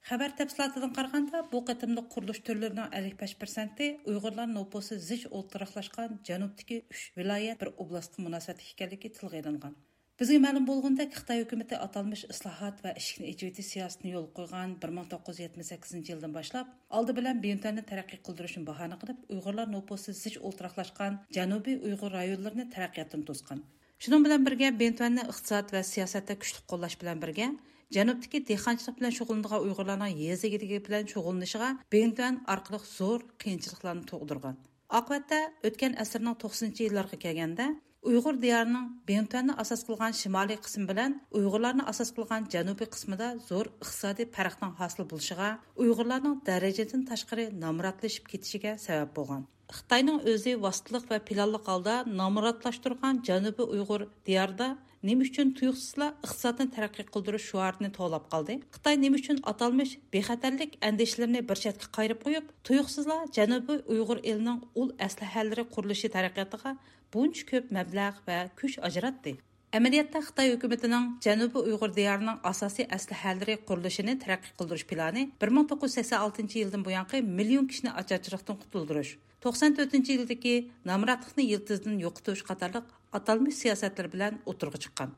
خەۋەر تەپسىلاتىدىن قارىغاندا، بۇ قېتىملىق قۇرۇلۇش تۈرلىرىنىڭ ئەللىك بەش پىرسەنتى ئۇيغۇرلار نوپۇسى زىچ ئولتۇراقلاشقان جەنۇبتىكى ئۈچ ۋىلايەت، بىر ئوبلاستقا مۇناسىۋەتلىك ئىكەنلىكى تىلغا ئېلىنغان. بىزگە مەلۇم بولغىنىدەك، خىتاي ھۆكۈمىتى ئاتالمىش ئىسلاھات ۋە ئىشىكنى ئېچىۋېتىش سىياسىتىنى يولغا قويغان بىر مىڭ توققۇز يۈز يەتمىش سەككىزىنچى يىلدىن باشلاپ، ئالدى بىلەن بىڭتۈەننى تەرەققىي قىلدۇرۇشنى باھانە قىلىپ، ئۇيغۇرلار نوپۇسى زىچ ئولتۇراقلاشقان جەنۇبىي ئۇيغۇر رايونلىرىنى تەرەققىياتتىن توسقان. شۇنىڭ بىلەن بىرگە، بىڭتۈەننى ئىقتىساد ۋە سىياسەتتە كۈچلۈك قوللاش بىلەن بىرگە، جەنۇبتىكى دېھقانچىلىق بىلەن شۇغۇللىنىدىغان ئۇيغۇرلارنىڭ يېزا ئىگىلىكى بىلەن شۇغۇللىنىشىغا بىڭتۈەن ئارقىلىق زور قىيىنچىلىقلارنى تۇغدۇرغان. ئاقىۋەتتە، ئۆتكەن ئەسىرنىڭ توقسىنىنچى يىللىرىغا كەلگەندە، ئۇيغۇر دىيارىنىڭ بىڭتۈەننى ئاساس قىلغان شىمالىي قىسمى بىلەن ئۇيغۇرلارنى ئاساس قىلغان جەنۇبىي قىسمىدا زور ئىقتىسادىي پەرقنىڭ ھاسىل بولۇشىغا، ئۇيغۇرلارنىڭ دەرىجىدىن تاشقىرى نامراتلىشىپ كېتىشىگە سەۋەب بولغان. خىتاينىڭ ئۆزى ۋاسىتىلىق ۋە پىلانلىق ھالدا نامراتلاشتۇرغان جەنۇبىي ئۇيغۇر دىيارىدا نېمە ئۈچۈن تۇيۇقسىزلا ئىقتىسادنى تەرەققىي قىلدۇرۇش شوئارىنى توۋلاپ قالدى؟ خىتاي نېمە ئۈچۈن ئاتالمىش بىخەتەرلىك ئەندىشىلىرىنى بىر چەتكە قايرىپ قويۇپ، تۇيۇقسىزلا جەنۇبىي ئۇيغۇر ئېلىنىڭ ئۇل ئەسلىھەلىرى قۇرۇلۇشى تەرەققىياتىغا بۇنچە كۆپ مەبلەغ ۋە كۈچ ئاجراتتى؟ ئەمەلىيەتتە، خىتاي ھۆكۈمىتىنىڭ جەنۇبىي ئۇيغۇر دىيارىنىڭ ئاساسىي ئەسلىھەلىرى قۇرۇلۇشىنى تەرەققىي قىلدۇرۇش پىلانى بىر مىڭ توققۇز يۈز سەكسەن ئالتىنچى يىلدىن بۇيانقى مىليون كىشىنى ئاچارچىلىقتىن قۇتۇلدۇرۇش، توقسان تۆتىنچى يىلدىكى نامراتلىقنى يىلتىزىدىن يوقىتىش قاتارلىق ئاتالمىش سىياسەتلىرى بىلەن ئوتتۇرىغا چىققان.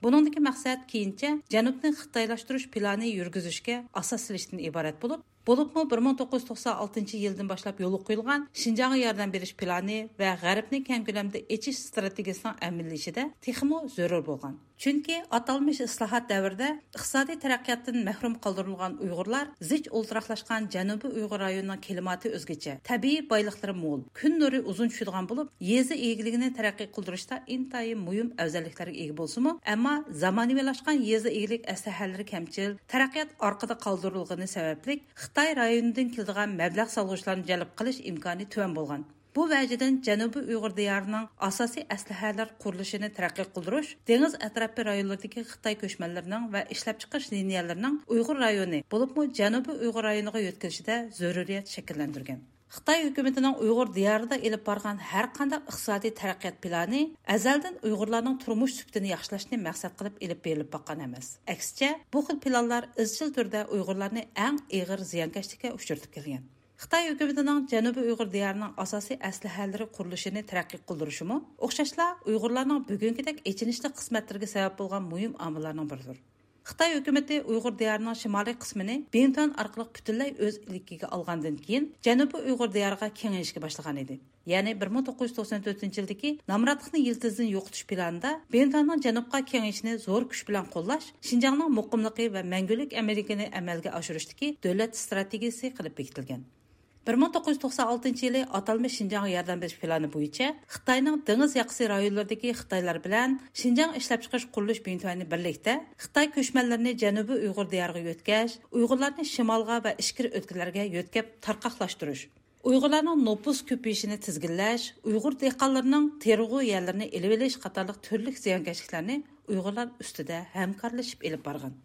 بۇنىڭدىكى مەقسەت كېيىنچە جەنۇبنى خىتايلاشتۇرۇش پىلانى يۈرگۈزۈشكە ئاساس سېلىشتىن ئىبارەت بولۇپ، بولۇپمۇ بىر مىڭ توققۇز يۈز توقسان ئالتىنچى يىلدىن باشلاپ يولغا قويۇلغان شىنجاڭغا ياردەم بېرىش پىلانى ۋە غەربنى كەڭ كۆلەمدە ئېچىش ئىستراتېگىيىسىنىڭ ئەمەلىيلىشىشىدە تېخىمۇ زۆرۈر بولغان. چۈنكى ئاتالمىش ئىسلاھات دەۋرىدە ئىقتىسادىي تەرەققىياتتىن مەھرۇم قالدۇرۇلغان ئۇيغۇرلار زىچ ئولتۇراقلاشقان جەنۇبىي ئۇيغۇر رايونىنىڭ كىلىماتى ئۆزگىچە، تەبىئىي بايلىقلىرى مول، كۈن نۇرى ئۇزۇن چۈشىدىغان بولۇپ، يېزا ئىگىلىكىنى تەرەققىي قىلدۇرۇشتا ئىنتايىن مۇھىم ئەۋزەللىكلەرگە ئىگە بولسىمۇ، ئەمما زامانىۋىلاشقان يېزا ئىگىلىك ئەسلىھەلىرى كەمچىل، تەرەققىيات ئارقىدا قالدۇرۇلغىنى سەۋەبلىك، خىتاي رايونىدىن كېلىدىغان مەبلەغ سالغۇچىلارنى جەلپ قىلىش ئىمكانى تۆۋەن بولغان. بۇ ۋەجىدىن جەنۇبىي ئۇيغۇر دىيارىنىڭ ئاساسىي ئەسلىھەلەر قۇرۇلۇشىنى تەرەققىي قىلدۇرۇش، دېڭىز ئەتراپى رايونلىرىدىكى خىتاي كۆچمەنلىرىنىڭ ۋە ئىشلەپچىقىرىش لىنىيەلىرىنىڭ ئۇيغۇر رايونى، بولۇپمۇ جەنۇبىي ئۇيغۇر رايونىغا يۆتكىلىشىدە زۆرۈرىيەت شەكىللەندۈرگەن. خىتاي ھۆكۈمىتىنىڭ ئۇيغۇر دىيارىدا ئېلىپ بارغان ھەر قانداق ئىقتىسادىي تەرەققىيات پىلانى ئەزەلدىن ئۇيغۇرلارنىڭ تۇرمۇش سۈپىتىنى ياخشىلاشنى مەقسەت قىلىپ ئېلىپ بېرىلىپ باققان ئەمەس. ئەكسىچە، بۇ خىل پىلانلار ئىزچىل تۈردە ئۇيغۇرلارنى ئەڭ ئېغىر زىيانكەشلىككە ئۇچرىتىپ كەلگەن. خىتاي ھۆكۈمىتىنىڭ جەنۇبىي ئۇيغۇر دىيارىنىڭ ئاساسىي ئەسلىھەلىرى قۇرۇلۇشىنى تەرەققىي قىلدۇرۇشىمۇ ئوخشاشلا ئۇيغۇرلارنىڭ بۈگۈنكىدەك ئېچىنىشلىق قىسمەتلىرىگە سەۋەب بولغان مۇھىم ئامىللارنىڭ بىرىدۇر. خىتاي ھۆكۈمىتى ئۇيغۇر دىيارىنىڭ شىمالىي قىسمىنى بىڭتۈەن ئارقىلىق پۈتۈنلەي ئۆز ئىلكىگە ئالغاندىن كېيىن، جەنۇبىي ئۇيغۇر دىيارىغا كېڭىيىشكە باشلىغان ئىدى. يەنى بىر مىڭ توققۇز يۈز توقسەن تۆتىنچى يىلدىكى نامراتلىقنى يىلتىزىدىن يوقىتىش پىلانىدا بىڭتۈەننىڭ جەنۇبقا كېڭىيىشىنى زور كۈچ بىلەن قوللاش شىنجاڭنىڭ مۇقىملىقى ۋە مەڭگۈلۈك ئەمىنلىكىنى ئەمەلگە ئاشۇرۇشتىكى دۆلەت ئىستراتېگىيىسى قىلىپ بېكىتىلگەن. بىر مىڭ توققۇز يۈز توقسان ئالتىنچى يىلى ئاتالمىش شىنجاڭغا ياردەم بېرىش پىلانى بويىچە خىتاينىڭ دېڭىز ياقىسى رايونلىرىدىكى خىتايلار بىلەن شىنجاڭ ئىشلەپچىقىرىش قۇرۇلۇش بىڭتۈەنى بىرلىكتە خىتاي كۆچمەنلىرىنى جەنۇبىي ئۇيغۇر دىيارىغا يۆتكەش، ئۇيغۇرلارنى شىمالغا ۋە ئىچكىرى ئۆلكىلەرگە يۆتكەپ تارقاقلاشتۇرۇش، ئۇيغۇرلارنىڭ نوپۇس كۆپىيىشىنى تىزگىنلەش، ئۇيغۇر دېھقانلىرىنىڭ تېرىلغۇ يەرلىرىنى ئېلىۋېلىش قاتارلىق تۈرلۈك زىيانكەشلىكلەرنى ئۇيغۇرلار ئۈستىدە ھەمكارلىشىپ ئېلىپ بارغان.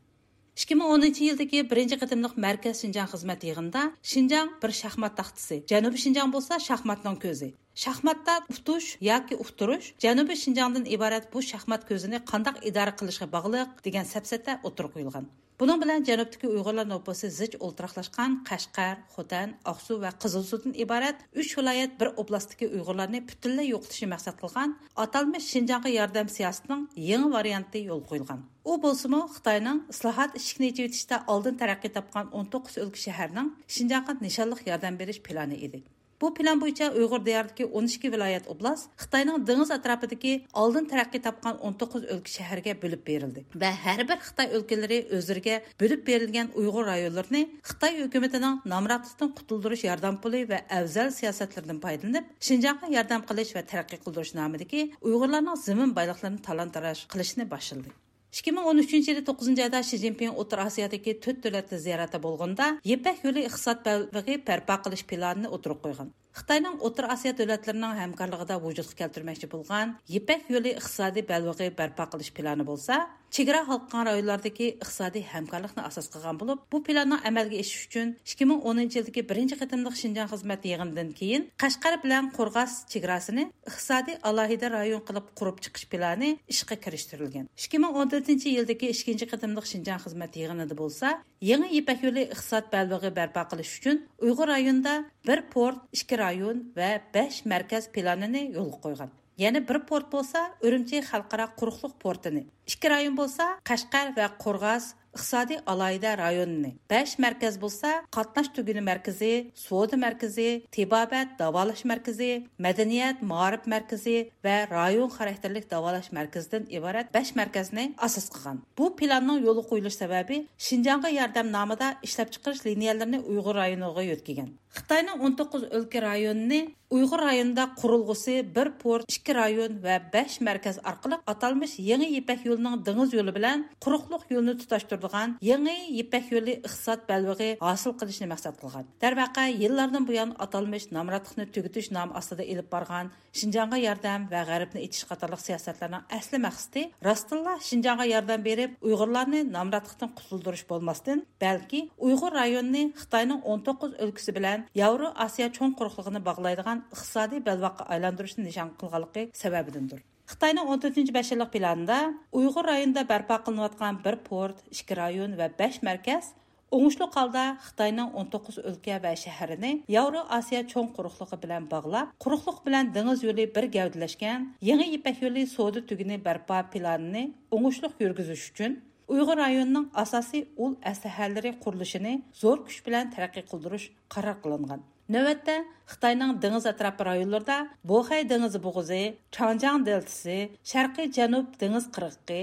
ئىككى مىڭ ئونىنچى يىلدىكى بىرىنچى قېتىملىق مەركەز شىنجاڭ خىزمەت يىغىنىدا شىنجاڭ بىر شاھمات تاختىسى، جەنۇبىي شىنجاڭ بولسا شاھماتنىڭ كۆزى، شاھماتتا ئۇتۇش ياكى ئۇتتۇرۇش جەنۇبىي شىنجاڭدىن ئىبارەت بۇ شاھمات كۆزىنى قانداق ئىدارە قىلىشقا باغلىق دېگەن سەپسەتە ئوتتۇرىغا قويۇلغان. بۇنىڭ بىلەن جەنۇبتىكى ئۇيغۇرلار نوپۇسى زىچ ئولتۇراقلاشقان قەشقەر، خوتەن، ئاقسۇ ۋە قىزىلسۇدىن ئىبارەت ئۈچ ۋىلايەت بىر ئوبلاستتىكى ئۇيغۇرلارنى پۈتۈنلەي يوقىتىشنى مەقسەت قىلغان ئاتالمىش شىنجاڭغا ياردەم سىياسىتىنىڭ يېڭى ۋارىيانتى يولغا قويۇلغان. ئۇ بولسىمۇ خىتاينىڭ ئىسلاھات ئىشىكىنى ئېچىۋېتىشتە ئالدىن تەرەققىي تاپقان ئون توققۇز ئۆلكە شەھەرنىڭ شىنجاڭغا نىشانلىق ياردەم بېرىش پىلانى ئىدى. بۇ پىلان بويىچە ئۇيغۇر دىيارىدىكى ئون ئىككى ۋىلايەت ئوبلاست خىتاينىڭ دېڭىز ئەتراپىدىكى ئالدىن تەرەققىي تاپقان ئون توققۇز ئۆلكە شەھەرگە بۆلۈپ بېرىلدى ۋە ھەر بىر خىتاي ئۆلكىلىرى ئۆزلىرىگە بۆلۈپ بېرىلگەن ئۇيغۇر رايونلىرىنى خىتاي ھۆكۈمىتىنىڭ نامراتلىقتىن قۇتۇلدۇرۇش ياردەم پۇلى ۋە ئەۋزەل سىياسەتلىرىدىن پايدىلىنىپ، شىنجاڭغا ياردەم قىلىش ۋە تەرەققىي قىلدۇرۇش نامىدىكى ئۇيغۇرلارنىڭ زېمىن بايلىقلىرىنى تالان-تاراج قىلىشنى باشلىدى. ئىككى مىڭ ئون ئۈچىنچى يىلى توققۇزىنچى ئايدا شى جىنپىڭ ئوتتۇرا ئاسىيادىكى تۆت دۆلەتلىك زىيارەتتە بولغىنىدا، يىپەك يولى ئىقتىساد بەلبېغى بەرپا قىلىش پىلانىنى ئوتتۇرىغا قويغان. خىتاينىڭ ئوتتۇرا ئاسىيا دۆلەتلىرىنىڭ ھەمكارلىقىدا ۋۇجۇدقا كەلتۈرمەكچى بولغان يىپەك يولى ئىقتىسادىي بەلبېغى بەرپا قىلىش پىلانى بولسا، چېگرا ھالقىغان رايونلاردىكى ئىقتىسادىي ھەمكارلىقنى ئاساس قىلغان بولۇپ، بۇ پىلاننىڭ ئەمەلگە ئېشىشى ئۈچۈن ئىككى مىڭ ئونىنچى يىلدىكى بىرىنچى قېتىملىق شىنجاڭ خىزمەت يىغىنىدىن كېيىن قەشقەر بىلەن قورغاس چېگراسىنى ئىقتىسادىي ئالاھىدە رايون قىلىپ قۇرۇپ چىقىش پىلانى ئىشقا كىرىشتۈرۈلگەن. ئىككى مىڭ ئون تۆتىنچى يىلدىكى ئىككىنچى قېتىملىق شىنجاڭ خىزمەت يىغىنىدا بولسا، يېڭى يىپەك يولى ئىقتىساد بەلبېغى بەرپا قىلىش ئۈچۈن ئۇيغۇر رايونىدا بىر پورت، ئىككى رايون ۋە بەش مەركەز پىلانىنى يولغا قويغان. يەنە بىر پورت بولسا ئۈرۈمچى خەلقئارا قۇرۇقلۇق پورتىنى، ئىككى رايون بولسا قەشقەر ۋە قورغاس ئىقتىسادىي ئالاھىدە رايونىنى، بەش مەركەز بولسا قاتناش تۈگۈنى مەركىزى، سودا مەركىزى، تېبابەت داۋالاش مەركىزى، مەدەنىيەت مائارىپ مەركىزى ۋە رايون خاراكتېرلىك داۋالاش مەركىزىدىن ئىبارەت بەش مەركەزنى ئاساس قىلغان. بۇ پىلاننىڭ يولغا قويۇلۇش سەۋەبى شىنجاڭغا ياردەم نامىدا ئىشلەپچىقىرىش لىنىيەلىرىنى ئۇيغۇر رايونىغا يۆتكىگەن. خىتاينىڭ ئون توققۇز ئۆلكە رايونىنى ئۇيغۇر رايونىدا قۇرۇلغۇسى بىر پورت، ئىككى رايون ۋە بەش مەركەز ئارقىلىق ئاتالمىش يېڭى يىپەك يولىنىڭ دېڭىز يولى بىلەن قۇرۇقلۇق يولىنى تۇتاشتۇرىدىغان يېڭى يىپەك يولى ئىقتىساد بەلبېغى ھاسىل قىلىشنى مەقسەت قىلغان. دەرۋەقە، يىللاردىن بۇيان ئاتالمىش نامراتلىقنى تۈگىتىش نامى ئاستىدا ئېلىپ بارغان شىنجاڭغا ياردەم ۋە غەربنى ئېچىش قاتارلىق سىياسەتلەرنىڭ ئەسلى مەقسىتى راستتىنلا شىنجاڭغا ياردەم بېرىپ، ئۇيغۇرلارنى نامراتلىقتىن قۇتۇلدۇرۇش بولماستىن، بەلكى ئۇيغۇر رايونىنى خىتاينىڭ ئون توققۇز ئۆلكىسى بىلەن ياۋرو ئاسىيا چوڭ قۇرۇقلۇقىنى باغلايدىغان ئىقتىسادىي بەلباغقا ئايلاندۇرۇشنى نىشان قىلغانلىقى سەۋەبىدىندۇر. خىتاينىڭ ئون تۆتىنچى بەش يىللىق پىلانىدا ئۇيغۇر رايونىدا بەرپا قىلىنىۋاتقان بىر پورت، ئىككى رايون ۋە بەش مەركەز ئوڭۇشلۇق ھالدا خىتاينىڭ ئون توققۇز ئۆلكە ۋە شەھىرىنى ياۋرو ئاسىيا چوڭ قۇرۇقلۇقى بىلەن باغلاپ، قۇرۇقلۇق بىلەن دېڭىز يولى بىر گەۋدىلەشكەن يېڭى يىپەك يولى سودا تۈگۈنى بەرپا پىلانىنى ئوڭۇشلۇق يۈرگۈزۈش ئۈچۈن، ئۇيغۇر رايونىنىڭ ئاساسىي ئۇل ئەسلىھەلىرى قۇرۇلۇشىنى زور كۈچ بىلەن تەرەققىي قىلدۇرۇش قارار قىلىنغان. نۆۋەتتە، خىتاينىڭ دېڭىز ئەتراپى رايونلىرىدا بوخەي دېڭىزى بوغۇزى، چاڭجياڭ دېلتىسى، شەرقىي جەنۇب دېڭىز قىرغىقى،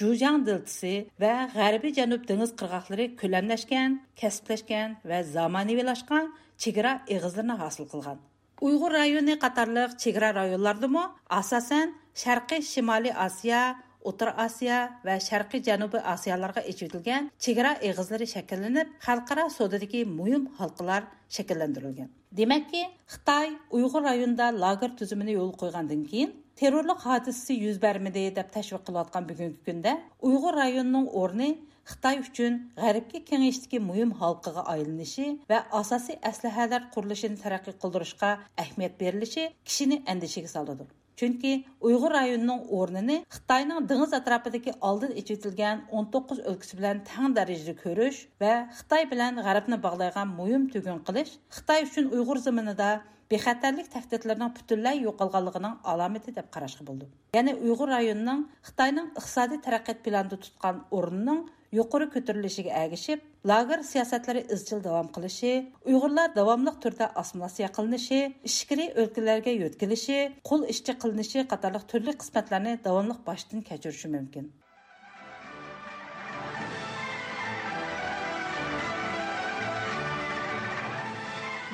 جۇجياڭ دېلتىسى ۋە غەربىي جەنۇب دېڭىز قىرغاقلىرى كۆلەملەشكەن، كەسىپلەشكەن ۋە زامانىۋىلاشقان چېگرا ئېغىزلىرىنى ھاسىل قىلغان. ئۇيغۇر رايونى قاتارلىق چېگرا رايونلاردىمۇ، ئاساسەن، شەرقىي شىمالىي ئاسىيا، ئوتتۇرا ئاسىيا ۋە شەرقىي جەنۇبىي ئاسىيالارغا ئېچىۋېتىلگەن چېگرا ئېغىزلىرى شەكىللىنىپ، خەلقئارا سودىدىكى مۇھىم ھالقىلار شەكىللەندۈرۈلگەن. دېمەككى، خىتاي ئۇيغۇر رايونىدا لاگېر تۈزۈمىنى يولغا قويغاندىن كېيىن، تېررورلۇق ھادىسىسى يۈز بەرمىدى دەپ تەشۋىق قىلىۋاتقان بۈگۈنكى كۈندە، ئۇيغۇر رايونىنىڭ ئورنى خىتاي ئۈچۈن غەربكە كېڭىيىشتىكى مۇھىم ھالقىغا ئايلىنىشى ۋە ئاساسىي ئەسلىھەلەر قۇرۇلۇشىنى تەرەققىي قىلدۇرۇشقا ئەھمىيەت بېرىلىشى كىشىنى ئەندىشىگە سالىدۇ. چۈنكى ئۇيغۇر رايونىنىڭ ئورنىنى خىتاينىڭ دېڭىز ئەتراپىدىكى ئالدىن ئېچىۋېتىلگەن ئون توققۇز ئۆلكىسى بىلەن تەڭ دەرىجىدە كۆرۈش ۋە خىتاي بىلەن غەربنى باغلايدىغان مۇھىم تۈگۈن قىلىش خىتاي ئۈچۈن ئۇيغۇر زېمىنىدا بىخەتەرلىك تەھدىتلىرىنىڭ پۈتۈنلەي يوقالغانلىقىنىڭ ئالامىتى دەپ قاراشقا بولىدۇ. يەنى ئۇيغۇر رايونىنىڭ خىتاينىڭ ئىقتىسادىي تەرەققىيات پىلانىدا تۇتقان ئورنىنىڭ يۇقىرى كۆتۈرۈلۈشىگە ئەگىشىپ، لاگېر سىياسەتلىرى ئىزچىل داۋام قىلىشى، ئۇيغۇرلار داۋاملىق تۈردە ئاسسىمىلياتسىيە قىلىنىشى، ئىچكىرى ئۆلكىلەرگە يۆتكىلىشى، قۇل ئىشچى قىلىنىشى قاتارلىق تۈرلۈك قىسمەتلەرنى داۋاملىق باشتىن كەچۈرۈشى مۇمكىن.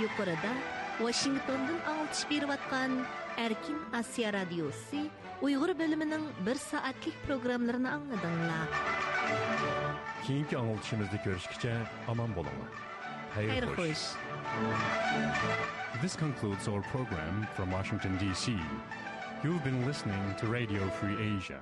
يۇقىرىدا ۋاشىنگتوندىن ئاڭلىتىش بېرىۋاتقان ئەركىن ئاسىيا رادىيوسى ئۇيغۇر بۆلۈمىنىڭ بىر سائەتلىك پروگراممىلىرىنى ئاڭلىدىڭلار. كېيىنكى ئاڭلىتىشىمىزدا كۆرۈشكىچە ئامان بولۇڭلار. خەير خوش. This concludes our program from Washington, D C. You've been listening to Radio Free Asia.